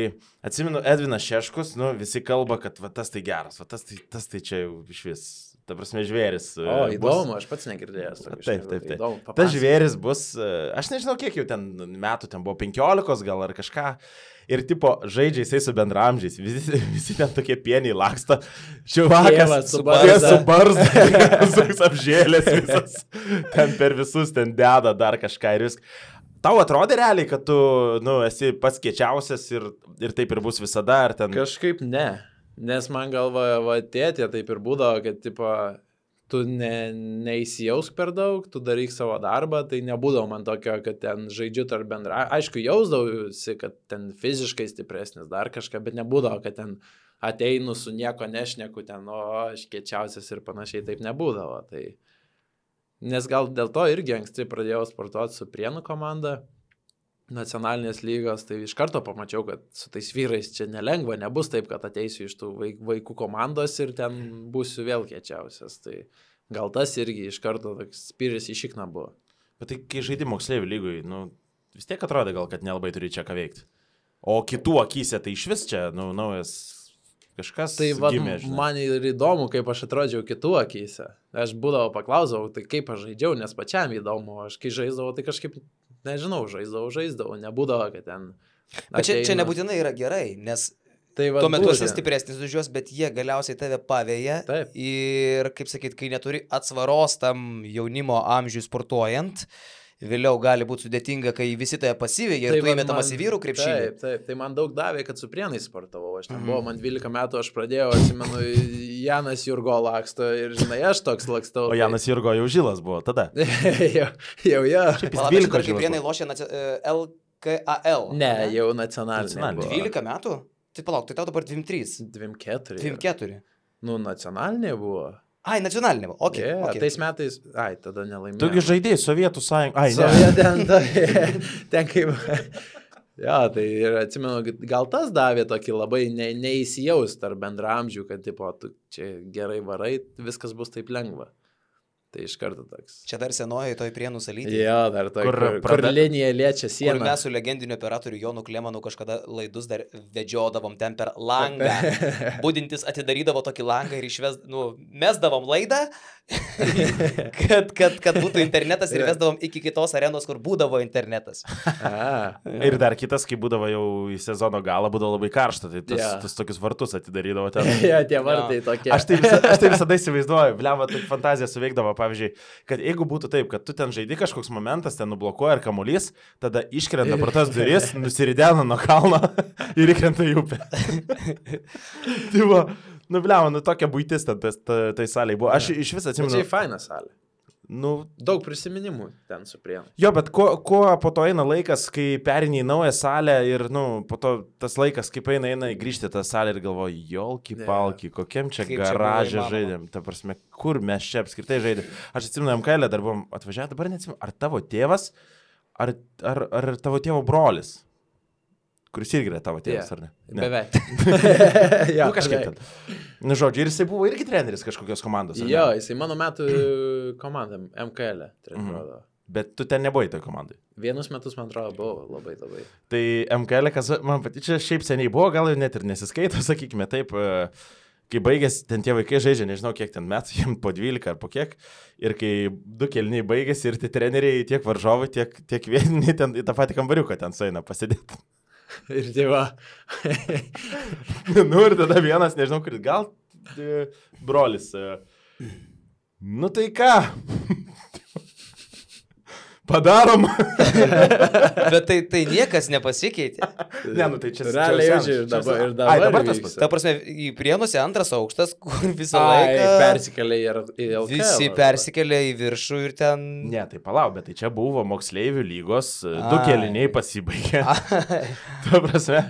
atsimenu, Edvinas Šeškus, visi kalba, kad va, tas tai geras, va, tas tai čia jau iš vis. Ta prasme, žvėris. O, įdomu, aš pats negirdėjęs. Taip. Įdomu, tas žvėris bus, aš nežinau, kiek jau ten metų, ten buvo 15 gal ar kažką. Ir tipo, žaidžia jisai su bendramžiais. Visi ten tokie pieniai laksto. Čiuvakas su barzda, apžėlės visas. Ten per visus ten deda dar kažką ir viską. Tau atrodė realiai, kad tu, esi pats kiečiausias ir taip ir bus visada, ar ten... Kažkaip ne. Nes man galva, tėtė taip ir būdavo, kad, tipo, tu neįsijausk per daug, tu daryk savo darbą, tai nebūdavo man tokio, kad ten žaidžiu tarp bendra. Aišku, jausdavausi, kad ten fiziškai stipresnis dar kažką, bet nebūdavo, kad ten ateinu su nieko nešneku, ten, aš kiečiausias ir panašiai, taip nebūdavo. Tai... Nes gal dėl to irgi anksti pradėjau sportuoti su Prienų komanda. Nacionalinės lygos, tai iš karto pamačiau, kad su tais vyrais čia nelengva, nebus taip, kad ateisiu iš tų vaikų komandos ir ten būsiu vėl kiečiausias. Tai gal tas irgi iš karto toks spyris į šikną buvo. Bet tai kai žaidži moksleivių lygoj, vis tiek atrodo gal, kad nelabai turi čia ką veikti. O kitų akyse tai iš vis čia, naujas kažkas tai gimė. Tai man ir įdomu, kaip aš atrodžiau kitų akyse. Aš būdavo paklausau, tai kaip aš žaidžiau, nes pačiam įdomu. Aš kai žaisdavau, tai kažkaip... Nežinau, žaisdavau, nebūdavo, kad ten... Bet čia nebūtinai yra gerai, nes tai tuo metu esi stipresnis už juos, bet jie galiausiai tave pavėja. Taip. Ir, kaip sakyt, kai neturi atsvaros tam jaunimo amžiui sportuojant, vėliau gali būti sudėtinga, kai visi tave pasivėja ir tu įmetamas į vyrų krepšinį. Taip, tai man daug davė, kad su Prienais sportavau. Aš ten buvau, man 12 metų, aš pradėjau, atsimenu, Janas Jurgo laksto ir, žinai, aš toks lakstau. O Janas Jurgo jau žilas buvo tada. jau. Palauk, kai Prienai lošė LKAL. Ne, jau nacionalinė. 12 metų? Tai palauk, tai tau dabar 23. 24. Nacionalinė buvo. Ai, nacionalinė. Okay. Tais metais, tada nelaimėjau. Tugi žaidėjai Sovietų sąjungą. Ten kaip... tai ir atsimenu, gal tas davė tokį labai neįsijaus tarp bendramžių, kad, tipo, tu čia gerai varai, viskas bus taip lengva. Tai iš karto toks. Čia dar senoji toj Prienų salytė. Jo, dar tokia, kur linija liečia sieną. Kur mes su legendiniu operatoriu Jonu Klemanu kažkada laidus dar vedžiodavom ten per langą. Budintis atidarydavo tokį langą ir mesdavom laidą, kad būtų internetas ir vesdavom iki kitos arenos, kur būdavo internetas. Ir dar kitas, kai būdavo jau į sezono galą, būdavo labai karšta, tai tas tokius vartus atidarydavo ten. Tie vartai tokie. Aš tai visada įsivaizduoju, blemba, tai fantazija suveikdavo. Pavyzdžiui, kad jeigu būtų taip, kad tu ten žaidi kažkoks momentas, ten nublokuoja ir kamuolys, tada iškrenta pro tas duris, nusiridena nuo kalno ir įkrenta į upę. Tai buvo, blemba, tokia buitis ten tai salėje buvo. Aš iš vis atsimenu. Tai faina salė. Daug prisiminimų ten su Prienu. Jo, bet kuo po to eina laikas, kai perini į naują salę ir, po to tas laikas, kaip eina grįžti tą salę ir galvoju, jolki palki, kokiam čia garažė žaidėm, ta prasme, kur mes čia apskritai žaidėm. Aš atsimenu, MKL dar buvom atvažiavę, dabar neatsimenu, ar tavo tėvas, ar tavo tėvo brolis, kuris irgi yra tavo tėvas, ar ne? Beveik. Kažkaip ten. Žodžiu, ir jisai buvo irgi treneris kažkokios komandos. Jo, jisai mano metų komandam, MKL treniruodavo. Bet tu ten nebuvai toj komandai. Vienus metus, man atrodo, buvo labai. Tai MKL, kas man čia šiaip seniai buvo, gal jau net ir nesiskaito, sakykime taip, kai baigėsi, ten tie vaikai žaidžia, nežinau kiek ten metų, jiems po 12 ar po kiek, ir kai 2 kėliniai baigėsi ir tie treneriai tiek varžovai, tiek vietiniai ten į tą patį kambariuką ten sueina pasidėti. Ir tėva. Nu ir tada vienas, nežinau, kuris gal brolis. Nu tai ką? Padarom. Bet tai niekas nepasikeitė. Ne, nu tai čia realiai ir dabar tas pats. Ta prasme, į Prienuose antras aukštas, kur visą laiką persikėlė į LKL. Visi persikėlė į viršų ir ten... Ne, tai palauk, bet tai čia buvo moksleivių lygos, 2 kėliniai pasibaigė. Ta prasme,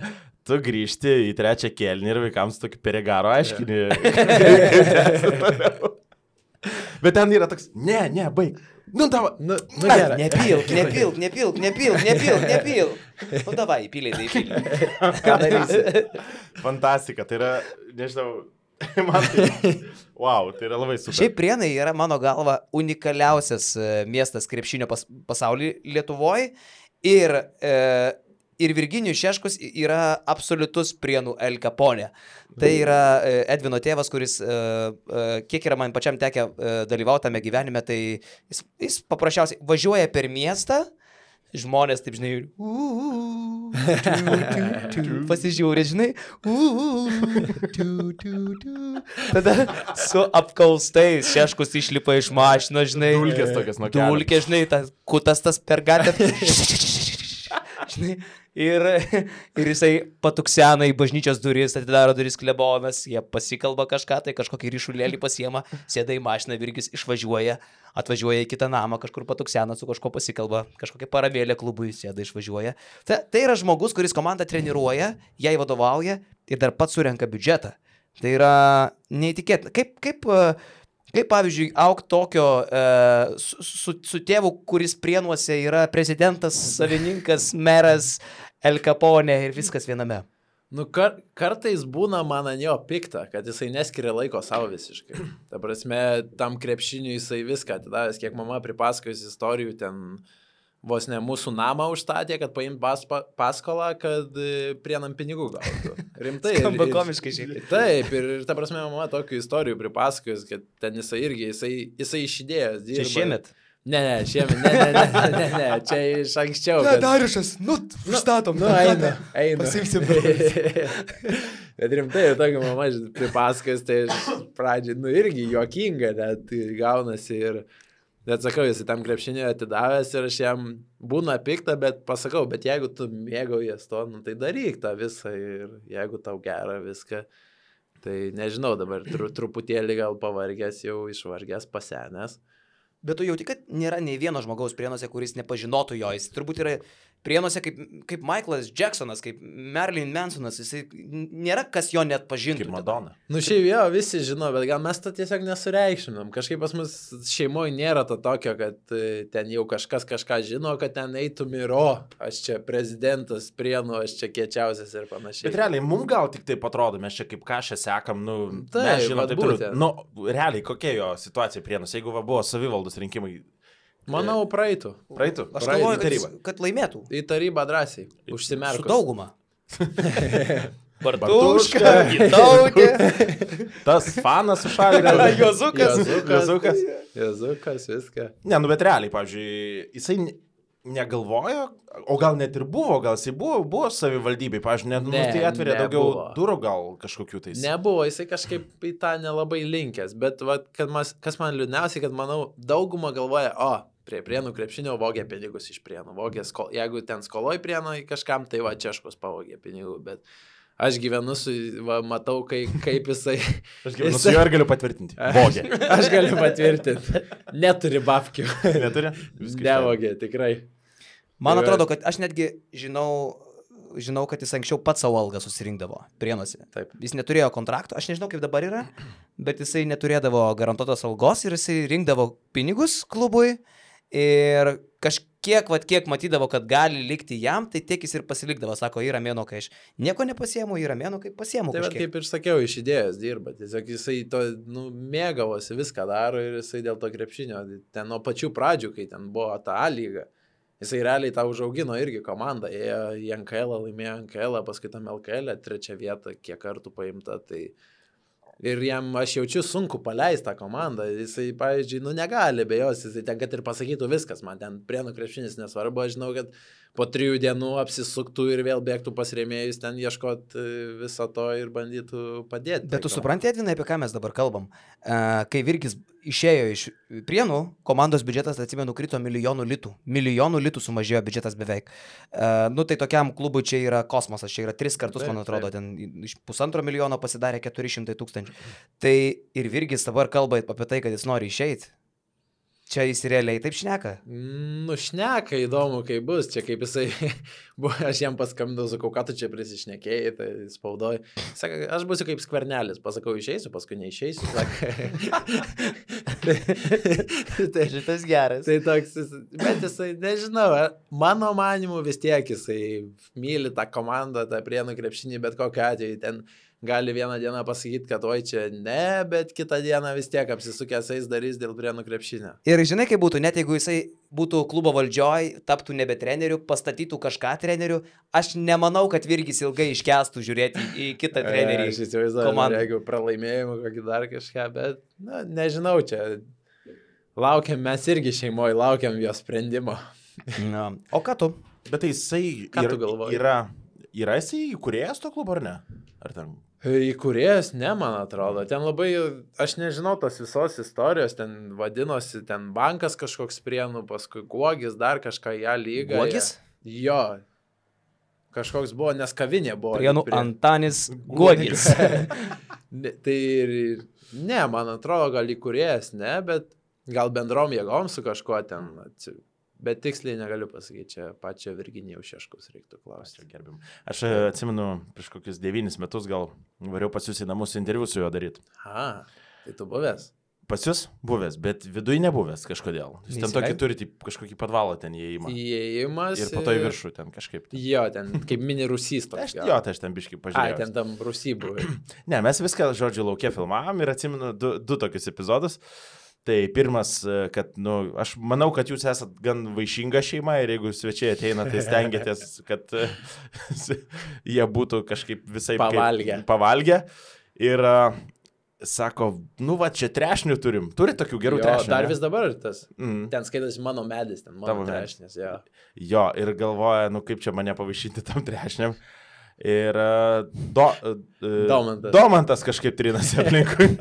tu grįžti į 3 kėlinį ir vaikams tokį perigaro aiškinį. Bet ten yra toks, ne, baig. Nu, davai, gerai. Nepilk. Nu, davai, įpylė. Ką darysi? Fantastika, tai yra, nežinau, man tai, wow, tai yra labai super. Šiaip Prienai yra, mano galva, unikaliausias miestas krepšinio pasaulyje Lietuvoje ir Virginijus Šeškus yra absoliutus Prienų El Capone. Tai yra Edvino tėvas, kuris, kiek yra man pačiam tekę dalyvauti tame gyvenime, tai jis paprasčiausiai važiuoja per miestą, žmonės, taip žinai, pasižiūrė, žinai, tada su apkaustais Šeškus išlipa iš mašinos, žinai, dulkės tokias nuo kelio. Dulkės, žinai, kutas tas per gatvę. Žinai, ir jisai patuksena į bažnyčios duris, atidaro duris klebonas, jie pasikalba kažką, tai kažkokį ryšulėlį pasiema, sėda į mašiną, Virgis atvažiuoja į kitą namą, kažkur patuksena, su kažko pasikalba, kažkokia paramėlė klubui sėda, išvažiuoja. Tai yra žmogus, kuris komandą treniruoja, jai vadovauja ir dar pats surenka biudžetą. Tai yra neįtikėtina. Kaip pavyzdžiui, auk tokio su tėvu, kuris Prienuose yra prezidentas, savininkas, meras, El Capone ir viskas viename. Nu, kartais būna man ant jo pikta, kad jisai neskiria laiko savo visiškai. Ta prasme, tam krepšiniui jisai viską atidavęs, kiek mama pripasakojus istorijų ten vos ne mūsų namą užstatė, kad paimt paskolą, kad Prienam pinigų gautų. Rimtai. Skamba komiškai šiek tiek. Taip, ir ta prasme, mama tokių istorijų pripasakojus, kad ten jisai iš idėjos dirba. Čia šiemet? Ne, šiemet, čia iš anksčiau. Ne, Dariušas, užstatom. Eina. Pasimsim. Bet rimtai, tokia mama pripasakojus, tai pradžiai, irgi juokinga, net gaunasi ir... Bet sakau, jis tam krepšinį atidavęs ir aš jam būna pikta, bet pasakau, bet jeigu tu mėgaujies to, tai daryk tą visą ir jeigu tau gera viską, tai nežinau, dabar truputėlį gal pavargęs, jau išvargęs, pasenęs. Bet tu jauti, kad nėra nei vieno žmogaus Prienuose, kuris nepažinotų jo. Jis turbūt yra Prienuose kaip Michaelas Jacksonas, kaip Marilyn Mansonas. Jis nėra kas jo net pažintų. Kaip Madonna. Nu šiaip jo, visi žino, bet gal mes to tiesiog nesureikšminam. Kažkaip pas mus šeimoje nėra to tokio, kad ten jau kažkas kažką žino, kad ten eitum ir aš čia prezidentas Prienų, aš čia kiečiausias ir panašiai. Bet realiai, mums gal tik taip atrodo, mes čia kaip kažką sekam, mes žinom taip toliau. Nu, realiai, kokia jo situacija Prienuose, jeigu buvo savivaldos rinkimai? Manau, praeitų. Aš galvoju, kad laimėtų. Į tarybą drąsiai. Užsimerkus. Su dauguma. Bartuška, Gitautė. Tas fanas su šaliku. Jozukas, viską. Ne, bet realiai, pavyzdžiui, jisai negalvojo, o gal net ir buvo, gal jisai buvo savivaldybei, pavyzdžiui, tai atveria daugiau durų gal kažkokių tais. Nebuvo, jisai kažkaip į tą nelabai linkęs, bet kas man liūdniausiai, kad manau, dauguma galvoja, prie Prienų krepšinio vogė pinigus iš Prienų, jeigu ten skoloj Prienų kažkam, tai Češkus pavogė pinigų, bet aš gyvenu matau, kaip jisai... Aš gyvenu su juo ir galiu patvirtinti. Vogė. Aš galiu patvirtinti. Neturi babkių. Neturi? Nevogė, tikrai. Man atrodo, kad aš netgi žinau, kad jis anksčiau pats savo algą susirinkdavo Prienuose. Taip. Jis neturėjo kontrakto, aš nežinau, kaip dabar yra, bet jisai neturėdavo garantuotos algos ir jisai rinkdavo pinigus klubui ir kiek matydavo, kad gali likti jam, tai tiek jis ir pasilikdavo. Sako, yra mėno, kai aš nieko nepasiemu, yra mėno, kai pasiemu. Tai kaip ir sakiau, iš idėjos dirba. Tiesiog jisai to mėgavosi, viską daro ir jisai dėl to krepšinio. Ten nuo pačių pradžių, kai ten buvo ta A lyga, jisai realiai tą užaugino irgi komandą. Ėjo į NKL, laimėjo NKL, paskui tam LKL, 3 vietą, kiek kartų paimta. Tai... Ir jam, aš jaučiu, sunku paleisti tą komandą. Jisai, pavyzdžiui, negali be jos, jisai ten, kad ir pasakytų viskas, man ten Prienų krepšinis nesvarbu, aš žinau, kad po 3 dienų apsisuktų ir vėl bėgtų pas rėmėjus ten ieškot viso to ir bandytų padėti. Bet tu supranti, Edvinai, apie ką mes dabar kalbam? Kai Virkis išėjo iš Prienų, komandos biudžetas, atsimenu, krito milijonų litų. Milijonų litų sumažėjo biudžetas beveik. Tai tokiam klubui čia yra kosmosas, čia yra 3 kartus, man atrodo, ten iš 1,5 milijono pasidarė 400 000. Tai ir Virkis dabar kalba apie tai, kad jis nori išeiti. Čia jis realiai taip šneka? Šneka, įdomu, kai bus. Čia kaip jisai, aš jam paskambinau, sakau, ką tu čia prisišnekėjai, tai spaudoj. Saka, aš būsiu kaip Skvernelis, pasakau, išeisiu, paskui neišeisiu. Tai šitas geras. Tai toks, bet jisai, nežinau, mano manimu vis tiek jisai myli tą komandą, tą Prienų krepšinį, bet kokiu atveju ten gali vieną dieną pasakyti, kad oi čia ne, bet kitą dieną vis tiek apsisukęs eis darys dėl Prienų krepšinio. Ir žinai, kaip būtų, net jeigu jisai būtų klubo valdžioj, taptų nebe treneriu, pastatytų kažką treneriu, aš nemanau, kad Virkis ilgai iškęstų žiūrėti į kitą trenerį. Aš įsivaizduoju, jeigu pralaimėjimų kokį dar kažką, bet, nežinau, čia laukiam, mes irgi šeimoje laukiam jo sprendimo. O ką tu? Bet tai jisai yra jisai įkūrėjas to klubo ar ne? Ar ten? Įkūrėjas, ne, man atrodo. Ten labai, aš nežinau tos visos istorijos, ten vadinosi, ten bankas kažkoks Prienų, paskui Guogis, dar kažką ją lygą. Guogis? Jo. Kažkoks buvo, nes kavinė buvo. Prienų Antanis Guogis. Tai ne, man atrodo, gal įkūrėjas, ne, bet gal bendrom jėgom su kažkuo ten. Bet tiksliai negaliu pasakyti, čia pačią Virginijaus Šeškaus reiktų klausti. Aš atsimenu, prieš kokius 9 metus gal variau pas jūs į namus interviu su juo daryti. Tai tu buvęs? Pas jūs buvęs, bet viduje nebuvęs kažkodėl. Jūs ten tokį turite kažkokį padvalą ten įėjimą. Įėjimas. Ir po to į viršų ten kažkaip. Jo, ten kaip mini rusys toks. Jo, tai aš ten biškai pažiūrėjau. Ten tam rusy buvai. Ne, mes viską, žodžiu, laukia filmavom ir atsimenu 2 tokius epizodus. Tai pirmas, kad, aš manau, kad jūs esat gan vaišinga šeima ir jeigu svečiai ateina, tai stengiatės, kad jie būtų kažkaip visai pavalgę. Ir sako, čia trešnių turim. Turi tokių gerų trešnių. Dar vis dabar tas. Ten skaitasi mano medis, ten mano trešnės. Jo, ir galvoja, kaip čia mane pavaišinti tam trešniam. Ir Domantas kažkaip trinasi aplinkui.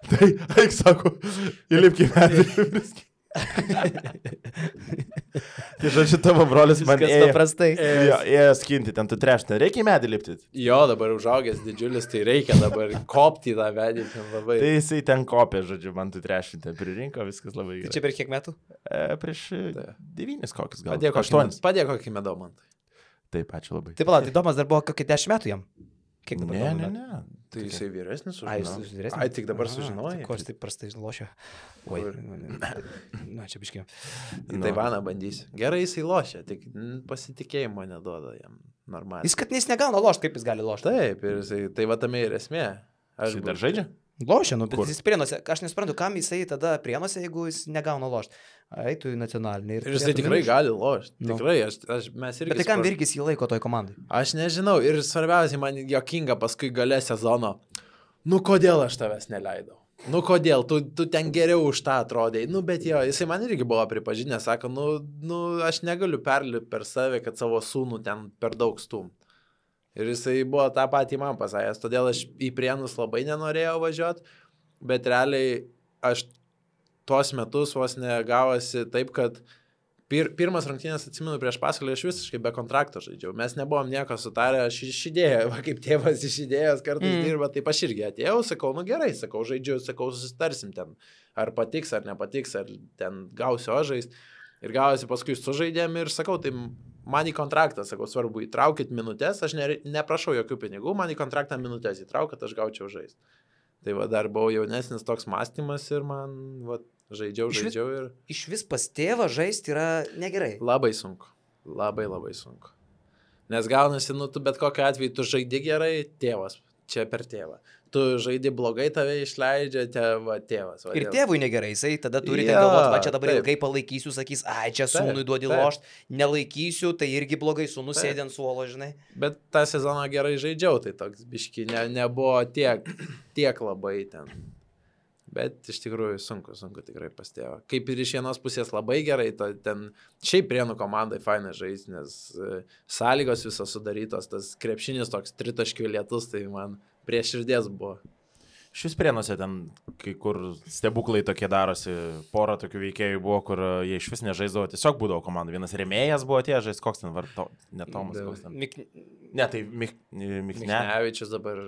Tai, eik, sako, įlipki medį. Tai žodžiu, tavo brolis man ėjo skinti, ten tu trešinę. Reikia į medį lipti? Jo, dabar užaugęs didžiulis, tai reikia dabar kopti tą medį. Labai. Tai jisai ten kopė, žodžiu, man tu trešinti. Pririnko, viskas labai gerai. Tai čia per kiek metų? Prieš 9 kokius gal. Padėk kokį Domantai. Taip, ačiū labai. Taip, tai Domas dar buvo kokį 10 metų jam. Kiek dabar? Ne. Tai jisai vyresnis sužinojau. Ai, tik dabar sužinojai. Ko aš taip prastai lošia? Oi, čia biškiau. Į Taivaną bandysiu. Gerai jisai lošia, tik pasitikėjimo neduoda jam normaliai. Jis negauna lošti, kaip jis gali lošti. Taip, ir jisai, tai va tame ir esmė. Aš dar žaidžia? Lošia, bet jis Prienuose. Aš nesuprantu, kam jisai tada Prienuose, jeigu jis negauna lošti. Eitų į nacionalinį. Ir jisai tikrai gali lošti. Tikrai, mes irgi. Bet tai kam Virkis jį laiko toj komandai? Aš nežinau. Ir svarbiausiai man jokinga paskui gale sezono. Kodėl aš tavęs neleidau? Kodėl? Tu ten geriau už tą atrodai. Bet jo, jisai man irgi buvo pripažinęs, sako, aš negaliu perlipti per save, kad savo sūnų ten per daug stum. Ir jisai buvo tą patį man pasakęs, todėl aš į Prienus labai nenorėjau važiuoti, bet realiai aš tuos metus vos negavosi taip, kad pirmas rungtynės, atsimenu, prieš Pasvalį aš visiškai be kontrakto žaidžiau. Mes nebuvom nieko sutarę, aš išidėjau, kaip tėvas išidėjęs kartais dirba, taip aš irgi atėjau, sakau, gerai, sakau, žaidžiu, sakau, susitarsim ten, ar patiks, ar nepatiks, ar ten gausiu žaist. Ir gavosi paskui sužaidėm ir sakau, tai man į kontraktą, sakau, svarbu, įtraukit minutės, aš neprašau jokių pinigų, man į kontraktą minutės įtraukit, aš gaučiau žaist. Tai va, dar buvau jaunesnis toks mąstymas ir man, va, žaidžiau ir... Iš vis pas tėvą žaisti yra negerai. Labai sunku. Labai sunku. Nes gaunasi, tu bet kokiu atveju, tu žaidi gerai, tėvas, čia per tėvą. Tu žaidi blogai, tave išleidžia tėvas. Ir tėvui negerai, jisai tada turite galvoti, va čia dabar ilgai palaikysiu, sakys, čia sūnui duodi lošt, nelaikysiu, tai irgi blogai, sūnus sėdė ant suolo, žinai. Bet tą sezoną gerai žaidžiau, tai toks biški nebuvo tiek labai ten. Bet iš tikrųjų sunku tikrai pastėjo. Kaip ir iš vienos pusės labai gerai, ten šiaip Prienų komandai fainai žaisti, nes sąlygos visos sudarytos, tas krepšinis toks tritaškių lietus, tai man prie širdies buvo. Šis Prienuose ten, kai kur stebuklai tokie darosi, pora tokių veikėjų buvo, kur jie iš vis nežaisdavo, tiesiog būdavo komanda. Vienas rėmėjas buvo atėjęs žaisti, koks ten varto, ne Tomas, koks ten. Ne, tai Michnevičius dabar,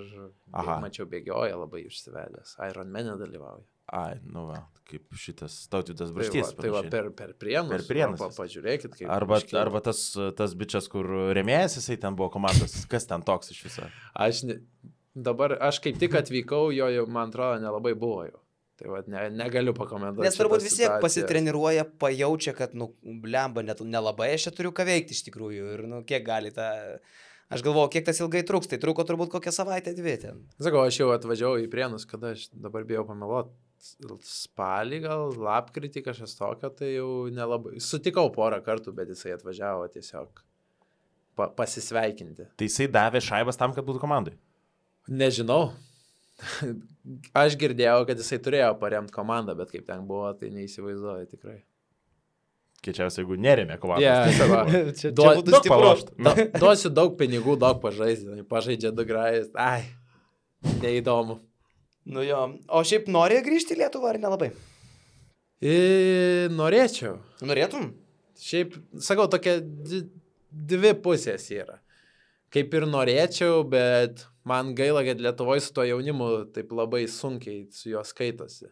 mačiau, bėgioja labai išsivedęs, Iron Man dalyvauja. Ai, nu va, kaip šitas Tautvydas Braštys. Tai va per Prienus. Pažiūrėkit, kaip. Arba tas bičias, kur rėmėjas, jisai ten buvo komandos, kas ten toks iš viso. Dabar aš kaip tik atvykau, jo jau, man atrodo, nelabai buvo jau. Tai va, negaliu pakomentuoti. Nes turbūt vis tiek pasitreniruoja, pajaučia, kad, blemba, nelabai aš čia turiu ką veikti iš tikrųjų. Ir, kiek gali tą... Aš galvoju, kiek tas ilgai truks, tai truko turbūt kokią savaitę, 2 ten. Sakau, aš jau atvažiavau į Prienus, kada aš dabar bijau pameluoti. Spalį gal, lapkritį kažkas tokio, tai jau nelabai. Sutikau porą kartų, bet jisai atvažiavo tiesiog pasisveikinti. Tai jisai davė šaibas tam, kad būtų komandai? Nežinau. Aš girdėjau, kad jisai turėjo paremti komandą, bet kaip ten buvo, tai neįsivaizduoju tikrai. Kiečiausia, jeigu nerėmė komandą. Duosiu daug pinigų, daug pažaisti. Pažaidžia 2 grajus. Ai, neįdomu. Nu jo. O šiaip nori grįžti į Lietuvą ar nelabai? Norėčiau. Norėtum? Šiaip, sakau, tokia 2 pusės yra. Kaip ir norėčiau, bet man gaila, kad Lietuvoje su to jaunimu taip labai sunkiai su juo skaitosi.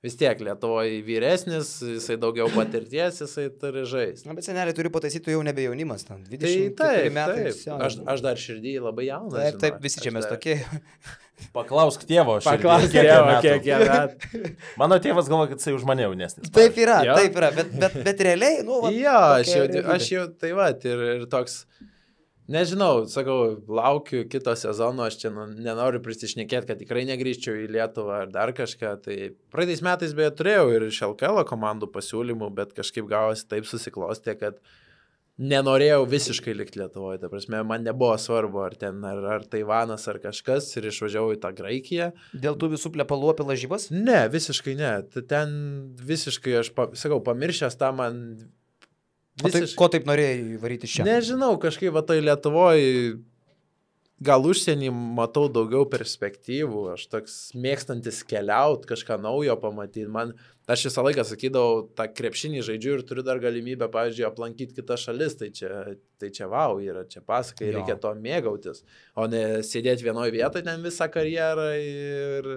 Vis tiek Lietuvoje vyresnis, jisai daugiau patirties, jisai turi žaisti. Na, bet seneliai turi pataisyti, tu jau nebe jaunimas, 24 metai. Aš dar širdį labai jaunas. Taip, visi čia mes tokie. Paklausk tėvo, kiek jie metų. Mano tėvas galvo, kad jisai už mane jaunesnis. Taip yra, bet realiai, aš jau, tai va, ir toks... Nežinau, sakau, laukiu kito sezono, aš čia nenoriu prisišnekėti, kad tikrai negrįžčiau į Lietuvą ar dar kažką. Tai praeitais metais beje turėjau ir iš LKL komandų pasiūlymų, bet kažkaip gavosi taip susiklostė, kad nenorėjau visiškai likti Lietuvoje. Ta prasme, man nebuvo svarbu, ar Taivanas, ar kažkas, ir išvažiavau į tą Graikiją. Dėl tų visų plepalų apie lažybas? Ne, visiškai ne. Ten visiškai, aš sakau, pamiršęs tą man... Ko taip norėjai varyti čia? Nežinau, kažkaip va tai Lietuvoje, gal užsienį matau daugiau perspektyvų, aš toks mėgstantis keliauti, kažką naujo pamatyti. Aš visą laiką sakydavau, tą krepšinį žaidžiu ir turiu dar galimybę, pavyzdžiui, aplankyti kitas šalis, tai čia vau, yra čia pasakai, reikia to mėgautis, o ne sėdėti vienoje vietoje ten visą karjerą ir...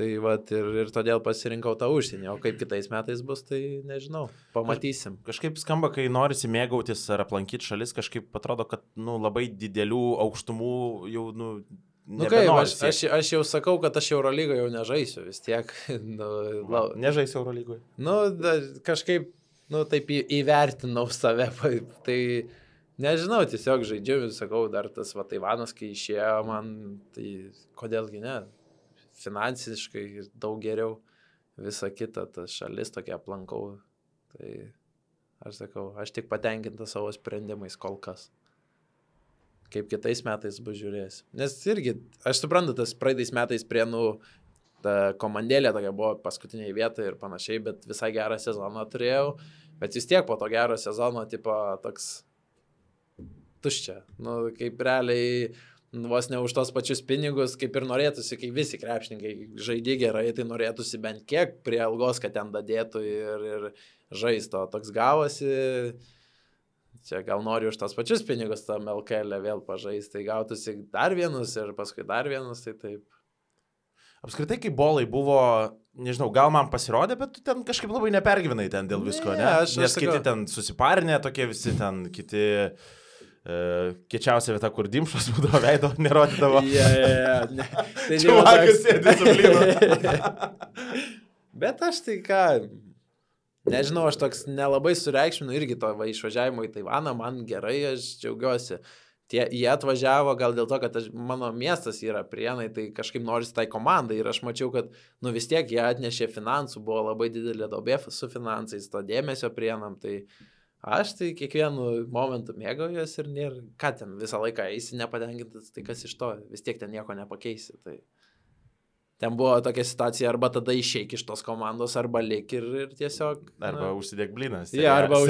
Tai vat, ir todėl pasirinkau tą užsienį, o kaip kitais metais bus, tai nežinau, pamatysim. Kažkaip skamba, kai norisi mėgautis ar aplankyti šalis, kažkaip atrodo, kad labai didelių aukštumų jau aš jau sakau, kad aš Eurolygoje jau nežaisiu vis tiek. Nežaisiu Eurolygoje? Kažkaip, taip įvertinau save, tai nežinau, tiesiog žaidžiu, sakau, dar tas Taivanas, kai išėjo man, tai kodėlgi ne? Finansiškai daug geriau, visa kita, tas šalis tokia aplankau, tai aš sakau, aš tik patenkintas savo sprendimais kol kas. Kaip kitais metais bus žiūrėsiu. Nes irgi, aš suprantu, tas praeitais metais Prienų ta komandėlė tokia buvo paskutiniai vietai ir panašiai, bet visai gerą sezoną turėjau, bet vis tiek po to gero sezono, tipo, toks tuščia, kaip realiai... Vos ne už tos pačius pinigus, kaip ir norėtųsi, kai visi krepšininkai žaidė gerai, tai norėtųsi bent kiek prie algos, kad ten dadėtų ir žaisto. Toks gavosi, čia gal nori už tos pačius pinigus tam LKL vėl pažaisti, tai gautųsi dar vienus ir paskui dar vienus, tai taip. Apskritai, kai bolai buvo, nežinau, gal man pasirodė, bet tu ten kažkaip labai nepergyvenai ten dėl visko, ne? Nes kiti ten susiparinė, tokie visi ten, kiti... Kiečiausia vieta, kur dimšos būdavo veido, nerodydavo. Čia vakas sėdė su blynu. Bet aš tai ką, nežinau, aš toks nelabai sureikšminu irgi to išvažiavimo į Taivaną, man gerai, aš džiaugiuosi. Jie atvažiavo gal dėl to, kad mano miestas yra Prienai, tai kažkaip norisi tai komandai ir aš mačiau, kad vis tiek jie atnešė finansų, buvo labai didelė duobė su finansais, to dėmesio Prienam, tai... Aš tai kiekvienu momentu mėgaujuosi ir nėra, ką ten visą laiką eisi nepatenkintas, tai kas iš to, vis tiek ten nieko nepakeisi. ten buvo tokia situacija, arba tada išeik iš tos komandos, arba lik ir tiesiog... Arba užsidėk bliną. Ja, arba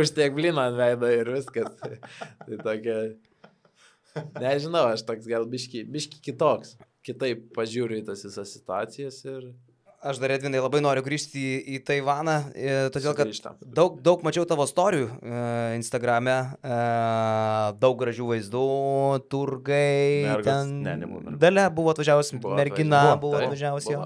užsidėk bliną ant veido ir viskas. Tai tokia... Nežinau, aš toks gal biški kitoks. Kitaip pažiūriu į tas visas situacijas ir... Aš dar, Edvinai, labai noriu grįžti į Taivaną, todėl kad daug mačiau tavo storijų Instagrame, daug gražių vaizdų, turgai, Dalia buvo atvažiavusi, mergina buvo atvažiavusi,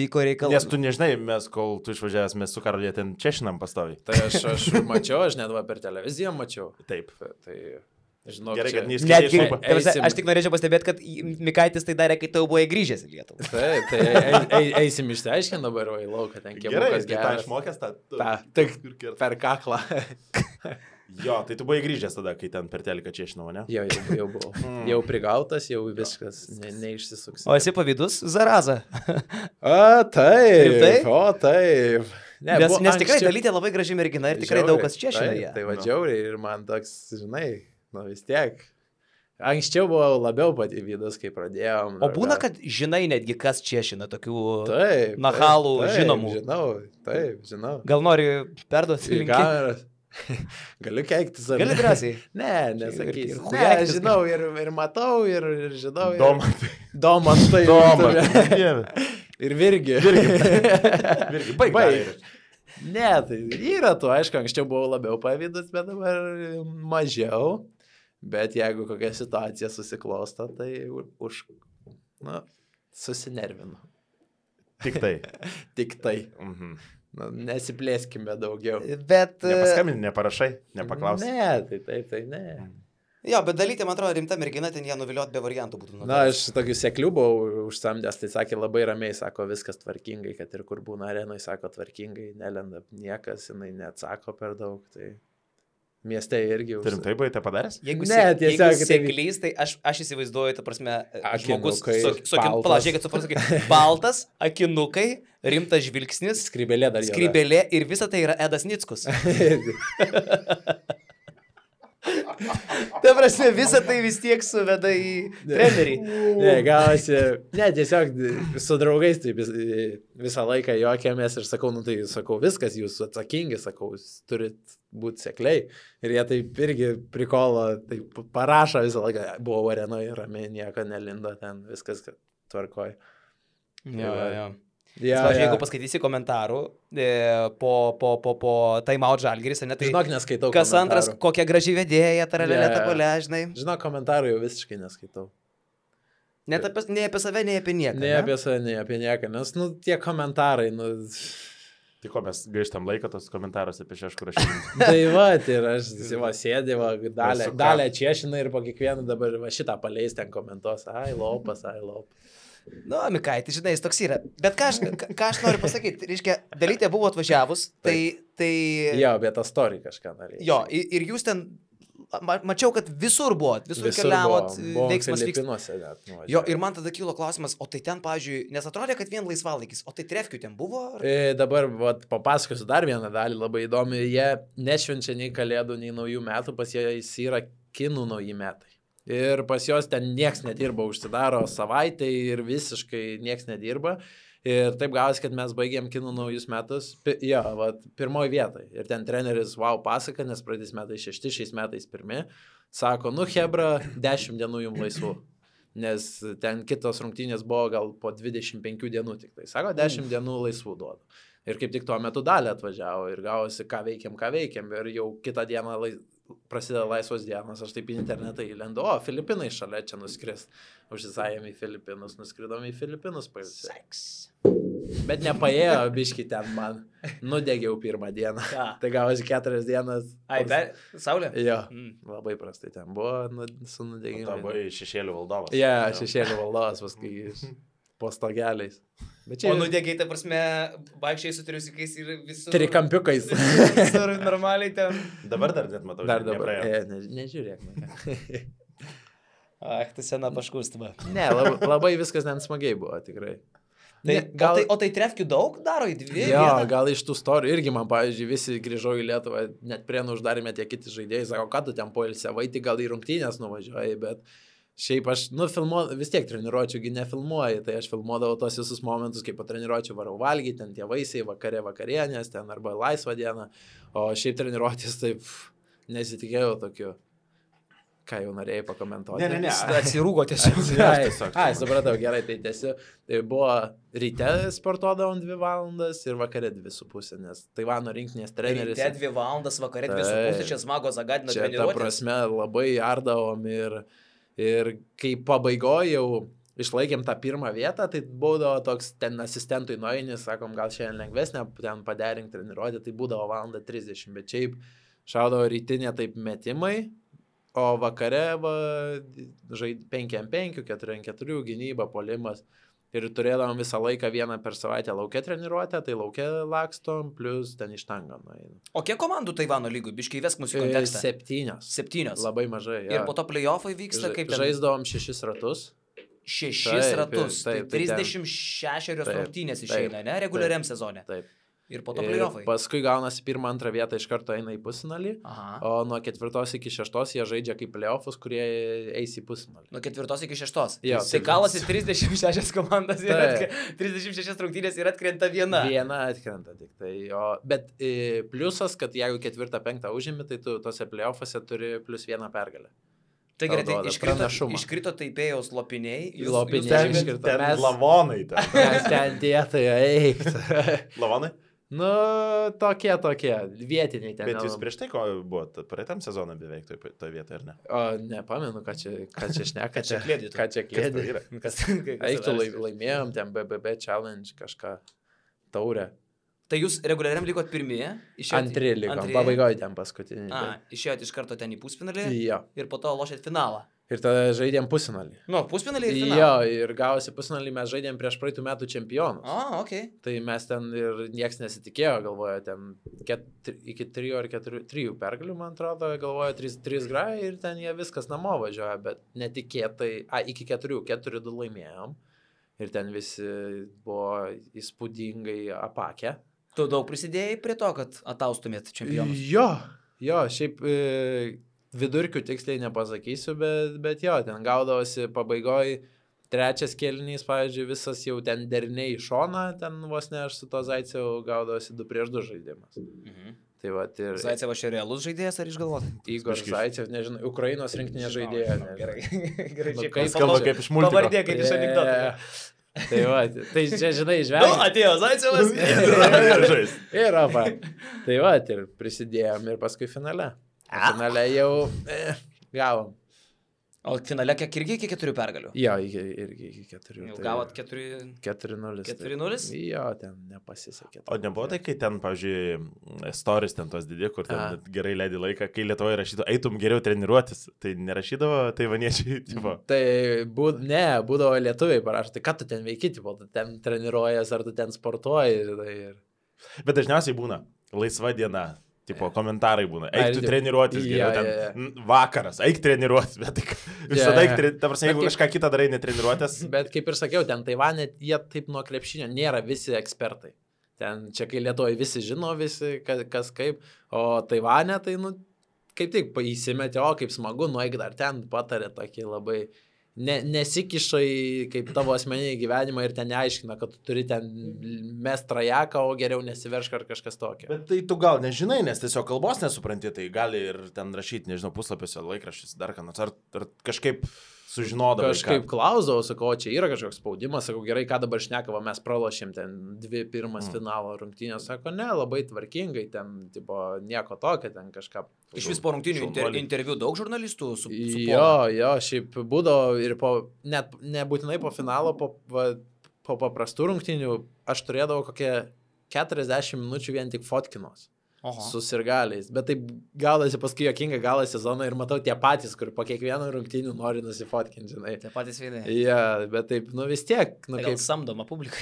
vyko reikalai. Nes tu nežinai, kol tu išvažiavęs, mes su Karolė ten češinam pastoviai. Tai aš mačiau, aš net per televiziją mačiau. Taip. Tai... Žinau, gerai, kad neįskaitai. Aš tik norėčiau pastebėti, kad Mikaitis tai darė, kai tau buvai grįžęs į Lietuvą. Taip, tai eisim išsiaiškinti dabar į lauką, ten kiek gerai, geras. Gerai, išmokęs tą. Tik per kaklą. Jo, tai tu buvai grįžęs tada, kai ten per teliką češinau, ne? Jau buvau. Jau prigautas, jau viskas neišsisuks. O esi pavydus, Zaraza? Taip. O, taip. Nes tikrai Dalytė labai graži mergina ir tikrai daug kas češina ją. Tai vadžiauriai ir man toks, žinai... vis tiek. Anksčiau buvau labiau pavydas, kai pradėjom. O būna, kad žinai netgi, kas češina tokių nachalų žinomų. Žinau. Gal nori perduoti linkėjimą? Galiu keiktis. Gali drąsiai. Ne, nesakysiu. Ne, žinau ir matau, ir žinau. Domantai. Ir Virgi. Baig. Ne, tai yra tu, aišku, anksčiau buvau labiau pavydas, bet dabar mažiau. Bet jeigu kokia situacija susiklosto, tai susinervinu. Tik tai. Tik tai. Nesiplėskime daugiau. Bet... Nepaskambini, neparašai, nepaklausai. Ne, tai ne. Jo, bet Dalytė, man atrodo, rimta mergina, ten ją nuviliot be variantų būtų. Na, aš tokių seklių buvau užsamdęs, tai sakė labai ramiai, sako, viskas tvarkingai, kad ir kur būna arenai, sako, tvarkingai, nelenda niekas, jinai neatsako per daug, tai mieste irgi... Turim tai buvai tai padaręs? Jeigu seklys, tai aš įsivaizduoju, ta prasme, žmogus, palažiūrėkit, suprantu, baltas, akinukai, rimtas žvilgsnis, skrybelė ir visa tai yra Edas Nickus. Ta prasme, visą tai vis tiek suveda į trenerį. Ne, gavosi, tiesiog su draugais taip visą laiką juokėmės ir sakau, viskas, jūs atsakingi, sakau, jūs turit būti sekliai. Ir jie taip irgi prikolo, taip parašo visą laiką, buvo arenoje, ramiai, nieko nelindo ten, viskas tvarkoja. Jo. Jeigu paskaitysi komentarų po Time-out Žalgiris, ne, tai žinok, neskaitau kas antras, kokia graži vedėja, taralelė takolė, žinai. Žinok, komentarų jau visiškai neskaitau. Nei apie save, nei apie nieką. Nei apie save, nei apie nieką, nes, tie komentarai, Tai ko mes gaištam laiką tos komentarus apie šeškur rašymą? Tai va, ir aš sėdė, dalę čiešina ir po kiekvieną dabar šitą paleis ten komentuos, ai lopas. Nu, Mikaiti, žinai, jis toks yra. Bet ką aš noriu pasakyti, reiškia, Dalytė buvo atvažiavus, tai... Jo, bet tą storį kažką norėjau. Jo, ir jūs ten, mačiau, kad visur buvot, visur keliavot, veiksmas Filipinuose net. Jo, ir man tada kilo klausimas, o tai ten, pavyzdžiui, nes atrodė, kad vien laisvalaikis, o tai trefkių ten buvo? Dabar papasakosiu dar vieną dalį, labai įdomi, jie nešvenčia nei kalėdų, nei naujų metų, pas jais yra kinų nauji metai. Ir pas jos ten nieks nedirba, užsidaro savaitę ir visiškai nieks nedirba. Ir taip gavosi, kad mes baigėm kinų naujus metus, pirmoji vietoj. Ir ten treneris, pasaka, nes praeitais metais 6, šiais metais 1. Sako, hebra, 10 dienų jums laisvų. Nes ten kitos rungtynės buvo gal po 25 dienų tik tai. Sako, 10 dienų laisvų duodu. Ir kaip tik tuo metu dalį atvažiavo ir gavosi, ką veikiam. Ir jau kitą dieną prasideda laisvos dienos, aš taip į internetą įlendu, Filipinai šalia čia nuskris. Užsisajėm į Filipinus, nuskridom į Filipinus pailsėti. Bet nepaėjo biški ten man. Nudegiau pirmą dieną. Tai gavosi 4 dienas. Saulė? Jo, labai prastai ten buvo su nudegimu. Tai buvo šešėlių valdovas. Šešėlių valdovas paskui po stogeliais. O nudegiai, ta prasme, vaikščiai su triusikais ir visur... Trikampiukais. Visur normaliai ten... Dabar dar net matau. Dar dabar. Nežiūrėk. Tai sena paškustama. Ne, labai viskas ten smagiai buvo, tikrai. O tai trefkių daug daro į 2? Jo, gal iš tų storijų irgi man, pavyzdžiui, visi grįžau į Lietuvą, net Prienų uždarėme tie kiti žaidėjai, sako, ką tu ten poilsiavai, tai gal į rungtynės nuvažiuoji, bet Šiaip aš, vis tiek treniruočiųgi nefilmuoju, tai aš filmuodavau tos visus momentus, kaip po treniruočių varau valgyti, ten tie vaisiai, vakarienės, ten arba laisvą dieną, o šiaip treniruotis taip nesitikėjau tokiu. Ką jau norėjai pakomentuoti? Ne. Atsirūgo tiesiog. Supratau, gerai, tai tiesiog. Tai buvo ryte sportuodavom 2 valandas ir vakare 2,5, nes Taivano rinktinės treneris. Ryte 2 valandas, vakare 2,5, čia smago zagadino treniruotės. Čia ta prasme labai ardavom ir kai pabaigoje jau išlaikėm tą pirmą vietą, tai būdavo toks ten asistentui nueinis, sakom, gal šiandien lengvesnė, ten paderink treniruotę, tai būdavo 1:30, bet šiaip šaudavo rytinė taip metimai. O vakare 5x5, 4x4 gynyba, puolimas. Ir turėdavom visą laiką vieną per savaitę laukia treniruotę, tai laukia lakstom, plus ten ištangą. O kiek komandų Taivano lygų? Biškai įvesk mūsų kontekstą. 7. Labai mažai. Ja. Ir po to play-offai vyksta kaip ten? Žaisdavom 6 ratus. 6 ratus. Taip, tai 36 rungtynės išeina, ne? Reguliariam sezone. Taip. Ir po to play-offai. Paskui gaunasi 1-2 vietą iš karto eina į pusfinalį, o nuo 4 iki 6 jie žaidžia kaip play-offus, kurie eis į pusfinalį. Nuo 4 iki 6. Jo, tai kalasi 36 komandas, 36 rungtynės ir atkrenta viena. Viena atkrenta tik tai. Bet pliusas, kad jeigu 4-5 užimi, tai tu tose play-offuose turi plus 1 pergalę. Tai gerai, tai iškrito Taipėjaus lopiniai. Lopiniai iškrito. Ten lavonai. Mes ten dėtai eik. Lavonai? Tokie, vietiniai ten. Bet jūs prieš tai ko buvot, praeitam sezoną beveik toje vietoje, ar ne? Nepamenu, ką čia šneka. Ką čia klėdė. Eiktų laimėjom, ten BBB challenge kažką, taurę. Tai jūs reguliariam likot pirmieji? Antri likom, pabaigoje ten paskutinį. Išėjot iš karto ten į pusfinalį? Jo. Ir po to lošėt finalą? Ir tada žaidėm pusfinalį. Pusfinalį ir finalą? Jo, ir gavosi pusfinalį mes žaidėm prieš praeitų metų čempionus. Okay. Tai mes ten ir nieks nesitikėjo, galvojo, ten iki 3 ar 3 pergalių, man atrodo, galvojo 3 grai ir ten jie viskas namo važiuoja, bet netikėtai, iki 4 laimėjom ir ten visi buvo įspūdingai apakę. Tu daug prisidėjai prie to, kad ataustumėt čempionus? Jo, šiaip vidurkių tiksliai nepasakysiu, bet jo, ten gaudavosi pabaigoj 3 kėlinys, pavyzdžiui, visas jau ten deriniai į šoną, ten vos ne aš su to Zaicevu gaudavosi 2-2 žaidimas. Tai va, ir... Zaicevas čia realus žaidėjas ar išgalvota? Igor Zaicevas, nežinau, Ukrainos rinktinė žaidėja. Gerai, kaip skamba kaip iš multiko. Pavardė kaip iš anekdoto. Tai va, tai čia, žinai, žvelgiam. Atėjo Zaicevas. Ir apa. Tai va, ir prisidėjom ir paskui finale. Finale jau gavom. O finale kiek irgi iki 4 pergalių? Jo, irgi iki 4. Jau gavot 4-0? 4-0? Jo, ten nepasisekė. O nebuvo tai, kai ten, pavyzdžiui, stories ten tos didė, kur ten gerai leidai laiką, kai Lietuvoje rašydavo, eitum geriau treniruotis, tai nerašydavo taivaniečiai, tipo? Tai būdavo lietuviai parašo, tai ką tu ten veiki, tipo, tu ten treniruojas, ar tu ten sportuoji. Bet dažniausiai būna laisva diena. Tipo, komentarai būna. Eik tu treniruotis geriau, ten vakaras, eik treniruotis, bet visada eik treniruotis. Ta prasme, jeigu kažką kitą darai, netreniruotis. Bet kaip ir sakiau, ten Taivane jie taip nuo krepšinio nėra visi ekspertai. Ten čia kai Lietuvoje visi žino, visi kas kaip, o Taivane tai, kaip tik įsimetė, kaip smagu, nueik dar ten, patarė tokį labai... Nesikiša į kaip tavo asmeninį gyvenimą ir ten neaiškina, kad tu turi ten mest trajeką, o geriau nesiveršk ar kažkas tokio. Bet tai tu gal nežinai, nes tiesiog kalbos nesupranti, tai gali ir ten rašyti, nežinau, puslapiuose, laikraščiuose, dar ką nors, ar kažkaip sužinodavai. Kažkaip klausdavau, sakau, čia yra kažkoks spaudimas, sakau, gerai, ką dabar šnekavo, mes pralošėm ten 2 pirmas finalo rungtynės, sako, ne, labai tvarkingai, ten, tipo, nieko tokio, ten kažką. Iš vis po rungtynių interviu daug žurnalistų su Jo, šiaip būdavo ir net nebūtinai po finalo, po paprastų rungtynių, aš turėdavau kokie 40 minučių vien tik fotkinos. Su sirgaliais, bet taip gaudasi paskui jokinga galo sezoną ir matau tie patys, kur po kiekvieno rungtynių nori nusifotkinti, žinai. Tie patys veidai. Ja, bet taip, vis tiek. Kaip samdoma publika.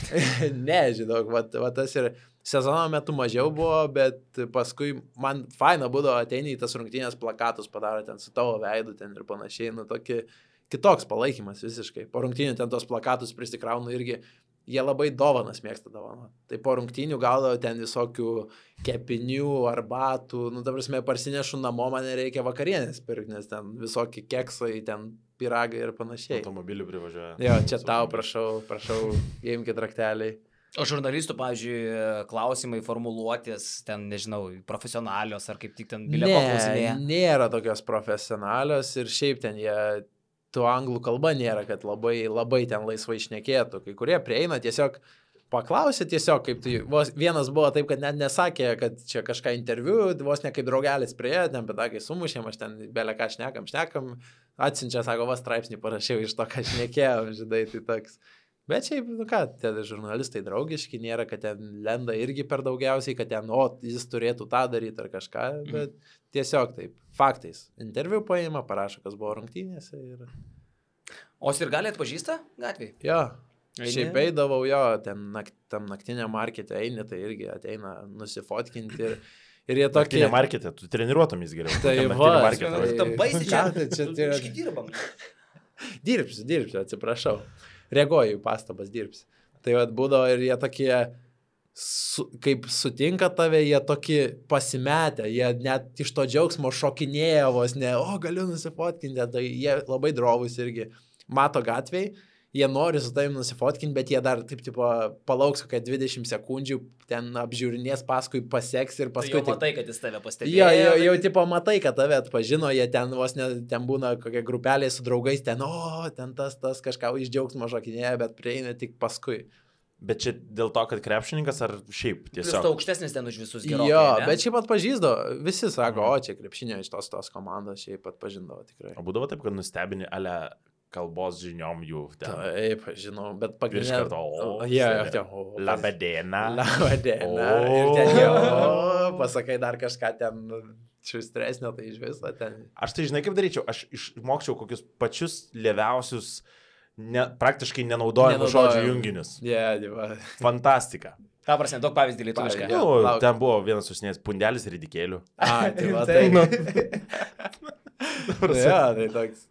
Ne, žinau, va tas ir sezono metu mažiau buvo, bet paskui man faina būdavo ateini į tas rungtynės plakatus, padaro ten su tavo veidu ten ir panašiai, tokį kitoks palaikymas visiškai. Po rungtynių ten tos plakatus prisikraunu irgi jie labai dovanas mėgsta dovaną. Tai po rungtynių gaudavo ten visokių kepinių, arbatų, nu, ta prasme, parsinešu namo, man reikia vakarienės pirkti, nes ten visokie keksai, ten piragai ir panašiai. Automobilių privažiuoja. Jo, čia tau, prašau, įimkit rakteliai. O žurnalistų, pavyzdžiui, klausimai, formuluotės, ten, nežinau, profesionalios ar kaip tik ten bileko klausimėje? Nėra tokios profesionalios ir šiaip ten jie... Tu anglų kalba nėra, kad labai ten laisvai šnekėtų. Kai kurie prieina tiesiog paklausė tiesiog, kaip tai, vienas buvo taip, kad net nesakė, kad čia kažką interviu, vos ne kaip draugelis prieėjo, ten pedakai sumušėm, aš ten belė ką šnekam, atsiunčia, sako, straipsnį parašiau iš to, ką šnekėjau, žinai, tai toks. Bet šiaip, nu ką, tie žurnalistai draugiški, nėra, kad ten lenda irgi per daugiausiai, kad ten, jis turėtų tą daryti ar kažką, bet tiesiog taip, faktais. Interviu paima, parašo, kas buvo rungtynėse ir... O Sirgalį atpažįsta gatvėje? Jo, šiaip eidavau jo, tam naktiniam markete eini, tai irgi ateina nusifotkinti ir jie tokie... Naktinė markete, tu treniruotomis geriau. Tai va, tam baisi čia, čia dirbam. Dirbsiu, atsiprašau. Reaguoju į pastabas, dirbsiu. Tai vat būdavo ir jie tokie, kaip sutinka tave, jie tokie pasimetę, jie net iš to džiaugsmo šokinėja vos, ne, galiu nusifotkinti, tai jie labai drovus irgi mato gatvėj, jie nori su tavim nusifotkinti, bet jie dar taip tipo palauks kokią 20 sekundžių, ten apžiūrinės, paskui paseks ir paskui... Tai jau matai, kad jis tave pastebėjo. Jau tipo matai, kad tave atpažino, jie ten vos ne, ten būna kokia grupelė su draugais, ten tas kažką iš džiaugsmo šokinėja, bet prieina tik paskui. Bet čia dėl to, kad krepšininkas ar šiaip tiesiog? Plius tu aukštesnis ten už visus gerokai. Jo, bet šiaip atpažįsdo, visi sako, čia krepšinio iš tos komandos šiaip atpažindavo tikrai. O būdavo taip, kad nustebini ale kalbos žiniom jų ten. Taip, žinau, bet pagrindinė... Iš karto, labadiena. Labadiena. Ir ten jau, pasakai dar kažką ten šustresnio, tai iš viso ten. Aš tai žinai kaip daryčiau, aš išmokčiau kokius pačius lėviausius, praktiškai nenaudojamus žodžių junginius. Dieva. Fantastika. Ką prasme, daug pavyzdį lietuvišką. Ten buvo vienas užsinės pundelis ridikėlių. Tai va, tai. Tai toks.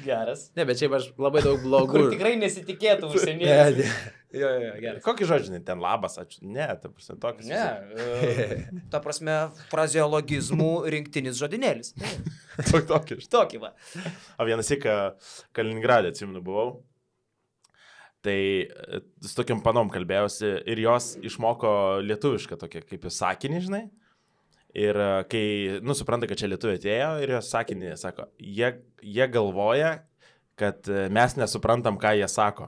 Geras. Ne, bet šiaip aš labai daug blogų. Kur tikrai nesitikėtų užsienietis. Jo, geras. Kokį žodžiai, ten labas, ačiū. Ne, ta prasme, toks. Ne, ta prasme, frazeologizmų rinktinis žodinėlis. Tokį va. O vienas įką Kaliningradė, atsimenu, buvau. Tai su tokiam panom kalbėjausi ir jos išmoko lietuvišką tokią kaip į sakinį, žinai. Ir kai, supranta, kad čia lietuviai atėjo ir jos sakinį sako, jie galvoja, kad mes nesuprantam, ką jie sako.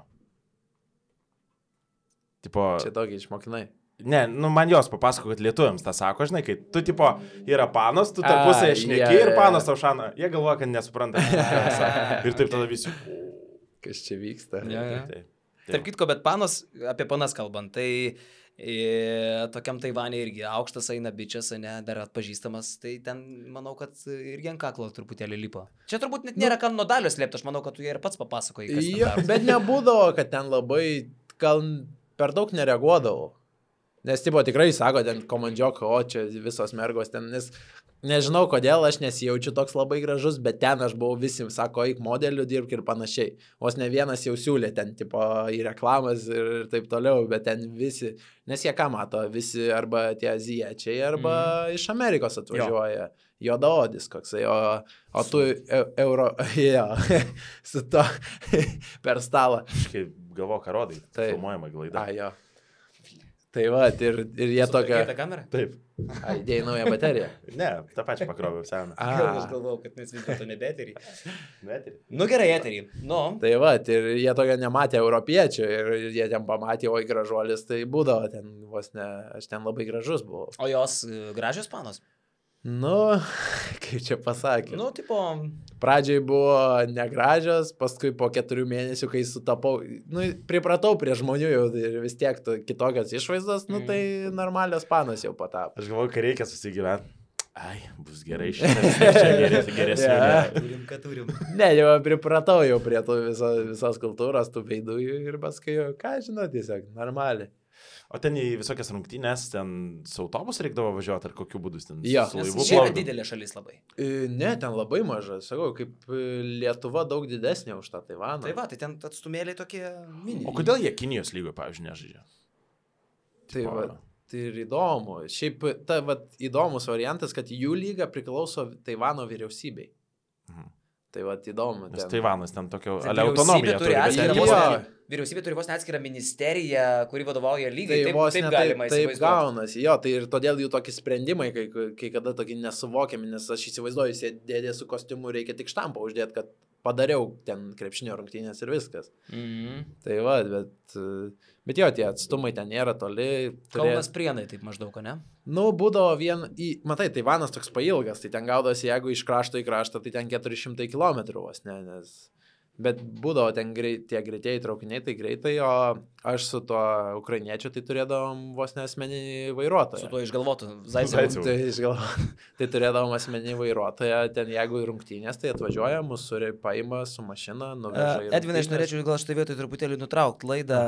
Tipo, čia tokį išmokinai. Ne, man jos papasako, kad lietuviams tą sako, žinai, kai tu, tipo, yra panos, tu tarpusėje šneki ir panos tau šana, jie galvoja, kad nesupranta, ką jie sako. Ir taip tada visi. Kas čia vyksta? Tarp kitko, bet panos, apie panas kalbant, tai tokiam Taivane irgi aukštas eina bičias, ne, dar atpažįstamas, tai ten, manau, kad irgi ant kaklo truputėlį lipo. Čia turbūt net nėra kam nuo dalio slėpti, aš manau, kad tu jie ir pats papasakoji, kas ten daro. Bet nebūdavo, kad ten labai, gal per daug nereaguodavau. Nes, tipo, tikrai sako, ten komandžiok, čia visos mergos ten, nes nežinau kodėl, aš nesijaučiu toks labai gražus, bet ten aš buvau visi, sako, eik modeliu, dirbk ir panašiai. Vos ne vienas jau siūlė ten, tipo, į reklamas ir taip toliau, bet ten visi, nes jie ką mato, visi arba tie azijiečiai, arba iš Amerikos atvažiuoja. Juodaodis koksai, o tu su to per stalą. Aš kaip galvoju, ką rodai, filmuojama glaida. Jo. Tai va, ir jie tokia... Keitą kamerą? Taip. Įdėjai naują bateriją? Ne, tą pačią pakroviau seną. Aš galvojau, kad mes vis dėlto nebe eterį. Nu gerai, eterį. Tai va, ir jie tokia nematė europiečių ir jie ten pamatė, oi gražuolis, tai būdavo ten vos ne, aš ten labai gražus buvau. O jos gražios panos? Kaip čia pasakė. Tipo... Pradžiai buvo negražios, paskui po 4 mėnesių, kai sutapau, pripratau prie žmonių jau ir vis tiek kitokios išvaizdos, tai normalios panos jau patapo. Aš galvoju, kad reikia susigyventi. Ai, bus gerai šiandien, geresnė. Turim, ką turim. Ne, jau pripratau jau prie visos kultūros, tų veidų ir paskui jau, ką žinau, tiesiog normaliai. O ten į visokias rungtynės, ten su autobusu reikdavo važiuoti, ar kokiu būdu ten Jo. su laivu Čia yra plaukdavo? didelė šalis labai. Ne, ten labai maža, sakau, kaip Lietuva daug didesnė už tą Taivaną. Tai va, tai ten atstumėliai tokie mini. O kodėl jie Kinijos lygoje, pavyzdžiui, nežaidžia? Tai va, tai ir įdomu. Šiaip ta va, įdomus variantas, kad jų lyga priklauso Taivano vyriausybei. Tai va, įdomu. Nes Taivanas ten tokio Tai autonomiją turi. bet ten jie- Vyriausybė turi vos neatskirą ministeriją, kuri vadovauja lygai. Tai Taip, vos taip ne galima taip įsivaizduoti. gaunasi, jo, tai ir todėl jų tokie sprendimai, kai kada tokie nesuvokiami, nes aš įsivaizduoju, jie dėdė su kostiumu, reikia tik štampą uždėti, kad padariau ten krepšinio rungtynės ir viskas. Tai va, bet jo, tie atstumai ten nėra toli. Kaunas Prienai taip maždaug, ne? Nu, būdavo matai, Taivanas toks pailgas, tai ten gaudosi, jeigu iš krašto į kraštą, tai ten 400 km vos, ne, nes... Bet būdavo ten tie greitieji traukiniai, tai greitai, o aš su tuo ukrainiečiu tai turėdavom vos ne asmeninį vairuotoją. Su tuo išgalvotu Zaicevu. Tai turėdavom asmeninį vairuotoją, ten jeigu rungtynės, tai atvažiuoja, mūsų paima su mašina, nuveža. Edvinai, aš norėčiau gal šitą vietą truputėlį nutraukti laidą,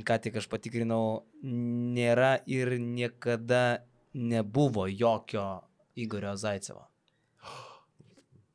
ką tik aš patikrinau, nėra ir niekada nebuvo jokio Igorio Zaicevo.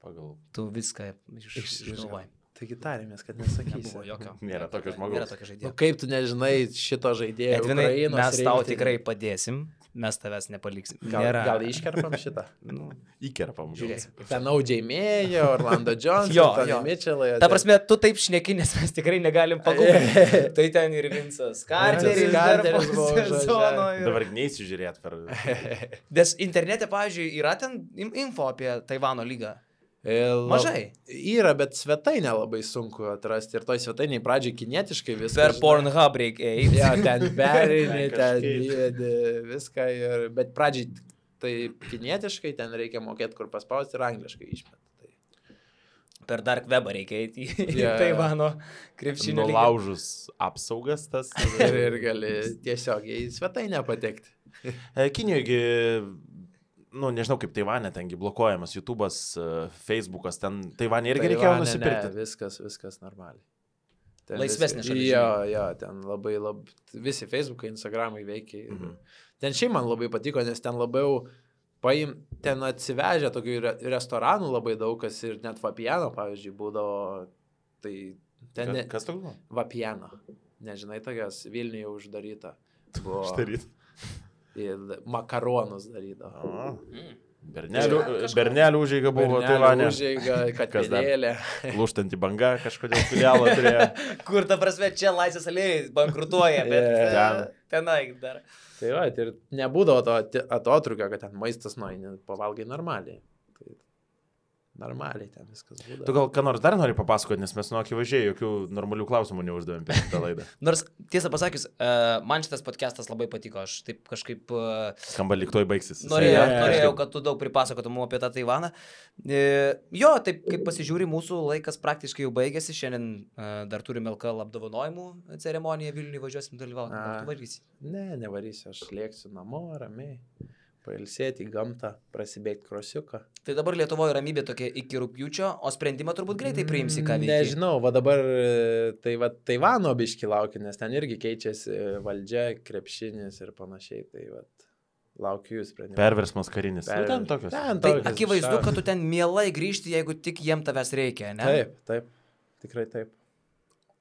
Pagal. Tu viską išgalvoji. Taigi tarėmės, kad nesakysi. Nebuvo jokio. Nėra tokio žmogaus. Nėra tokio žaidėjo. Kaip tu nežinai šito žaidėjo? Edvinai, Ukrainos mes tau rinktinė? tikrai padėsim, mes tavęs nepaliksim. Gal iškerpam šitą? Nu, Įkerpam. žiūrėsim. Ten Audžiai Mėjo, Orlando Jones, Jo, Tony jo. Mitchellai. Ta prasme, tu taip šneki, nes mes tikrai negalim pagūglinti. Tai ten ir Vincas Carteris dar po Carteris buvo sezono. Dabar neįsižiūrėt per... Nes internete, pavyzdžiui, yra ten info apie Taivano lygą. Mažai. Yra, bet svetainė labai sunku atrasti. Ir toj svetainiai pradžiai kinietiškai viską. Per Pornhub reikia eiti. Ja, ten perini, ten Kažkaip. įvedi viską. Bet pradžiai tai kinietiškai ten reikia mokėti, kur paspausti ir angliškai išmet. Per Dark Webą reikia eiti į Jo. Taivano krepšinio lygą. Nulaužus apsaugas tas. Ir gali tiesiog į svetainę patekti. Kinijoje, nu, nežinau kaip Taivane, tengi blokuojamas YouTube'as, Facebook'as, ten Taivane irgi reikėjo Taivane nusipirkti. Ne, viskas normaliai. Ten Laisvesnė viskas- šalis, Jo, ten labai, visi Facebook'ai, Instagram'ai veikia. Ten šiaip man labai patiko, nes ten labiau ten atsivežė tokių restoranų labai daug, kas ir net Vapiano, pavyzdžiui, būdavo. Tai ten Kas toks buvo? Vapiano. Nežinai, tokias Vilniuje uždaryta. Buvo. Štaryt. Ir makaronus darydavo. Bernelių užeiga buvo Taivane. Užeiga, Kas dar? katedėlė. Lūštanti banga kažkodėl filialą turėjo. Kur ta prasme čia Laisvės alėjai bankrutuoja, bet Ten. tenai dar. Tai va, ir nebūdavo to atotrukio, kad ten maistas nueini, pavalgai normaliai. Tai normaliai ten viskas būdavo. Tu gal ką nors dar nori papasakoti, nes mes nuo akivaizdžiai jokių normalių klausimų neuždavėm per šitą laidą. Nors, tiesą pasakius, man šitas podcastas labai patiko. Aš taip kažkaip Skamba lyg toj baigsis. norėjau, kad tu daug pripasakotum apie tą Taivaną. Jo, taip kaip pasižiūri, mūsų laikas praktiškai jau baigėsi. Šiandien dar turime LKL apdovanojimų ceremoniją Vilniuje, važiuosim dalyvauti. Ar tu varysi? Ne, nevarysiu, aš lėksiu namo, ramiai. Pailsėti į gamtą, prasibėgti krosiuką. Tai dabar Lietuvoje ramybė tokia iki rugpjūčio, o sprendimą turbūt greitai priimsi, ką veikti. Nežinau, va dabar tai va Taivano biški laukia, nes ten irgi keičiasi valdžia, krepšinis ir panašiai. Tai va laukiu jų sprendimą. Perversmas karinis. Nu, ten tokios. Ten Tai tokios, akivaizdu, kad tu ten mielai grįžti, jeigu tik jiem tavęs reikia, ne? Taip, tikrai taip.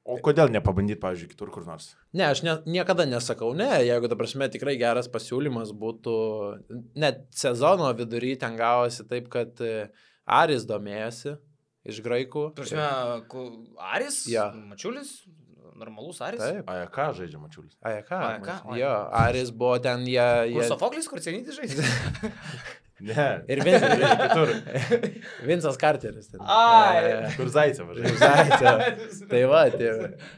O kodėl nepabandyti, pavyzdžiui, kitur kur nors? Ne, aš niekada nesakau ne, jeigu, ta prasme, tikrai geras pasiūlymas būtų, net sezono vidury ten gavosi taip, kad Aris domėjosi iš graikų. Prasme, Aris? Ja. Mačiulis? Normalus Aris? Taip. AEK žaidžia Mačiulis. AEK. oi. Jo, Aris buvo ten, jie... Sofoklis, kur Cenyti žaidė? Ne. Ir kitur. Vincas Carteris. Ten. Ai. Kur Zaicevas žaidžia. Zaicevas. Tai va, tai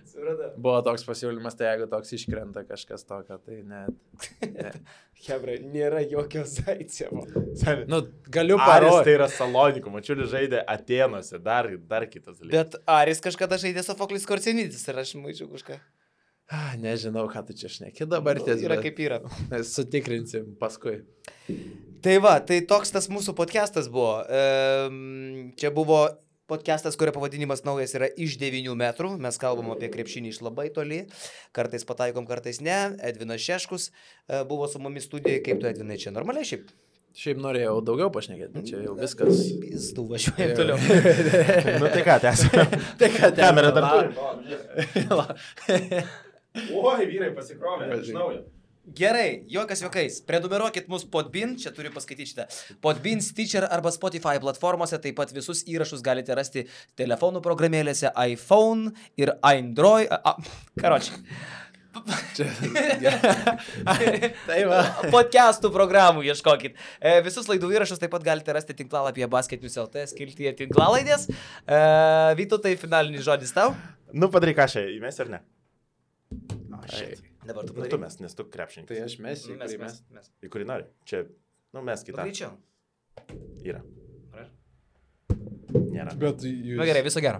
Supratau. buvo toks pasiūlymas, tai jeigu toks iškrenta kažkas tokio, tai net... Hebra, nėra jokio Zaicevo. Nu, galiu Aris parodyti. tai yra Salonikų, Mačiulis žaidė Atenuose, dar kitas dalykas. Bet Aris kažkada žaidė Sofoklis Korcenitis ir aš maičiau kažką. Nežinau, ką tu čia šneki dabar ties. Yra kaip yra. Sutikrinsim paskui. Tai va, tai toks tas mūsų podcastas buvo. Čia buvo Podcastas, kurio pavadinimas naujas yra iš 9 metrų. Mes kalbam apie krepšinį iš labai toli. Kartais pataikom, kartais ne. Edvinas Šeškus buvo su mumis studijoje. Kaip tu, Edvinai, čia normaliai šiaip? Šiaip norėjau daugiau pašnekėti, bet čia jau viskas. Pizdu, važiuojam toliau. Nu tai ką, tęsime. Tai ką, Kamera dar turi. Oi, vyrai pasikrovė iš naujo. Gerai, juokas juokais. Prenumeruokit mus Podbean, čia turiu paskaityti šitą. Podbean, Stitcher arba Spotify platformose, taip pat visus įrašus galite rasti telefonų programėlėse iPhone ir Android. Karočiui. Tai va. Podcastų programų ieškokit. Visus laidų įrašus taip pat galite rasti tinklalapyje basketnews.lt skiltyje tinklalaidės. Vytautai, finalinis žodis tau. Nu, padaryk kažką, įmesi ar ne? Dabar tu padaryk. Nu, tu mes, nes tu krepšininkas. Tai aš mesiu, mes. Į kurį nori? Čia, nu, mes kitą. Greičiau. Yra. Nėra. Bet jūs... Na gerai, viso gero.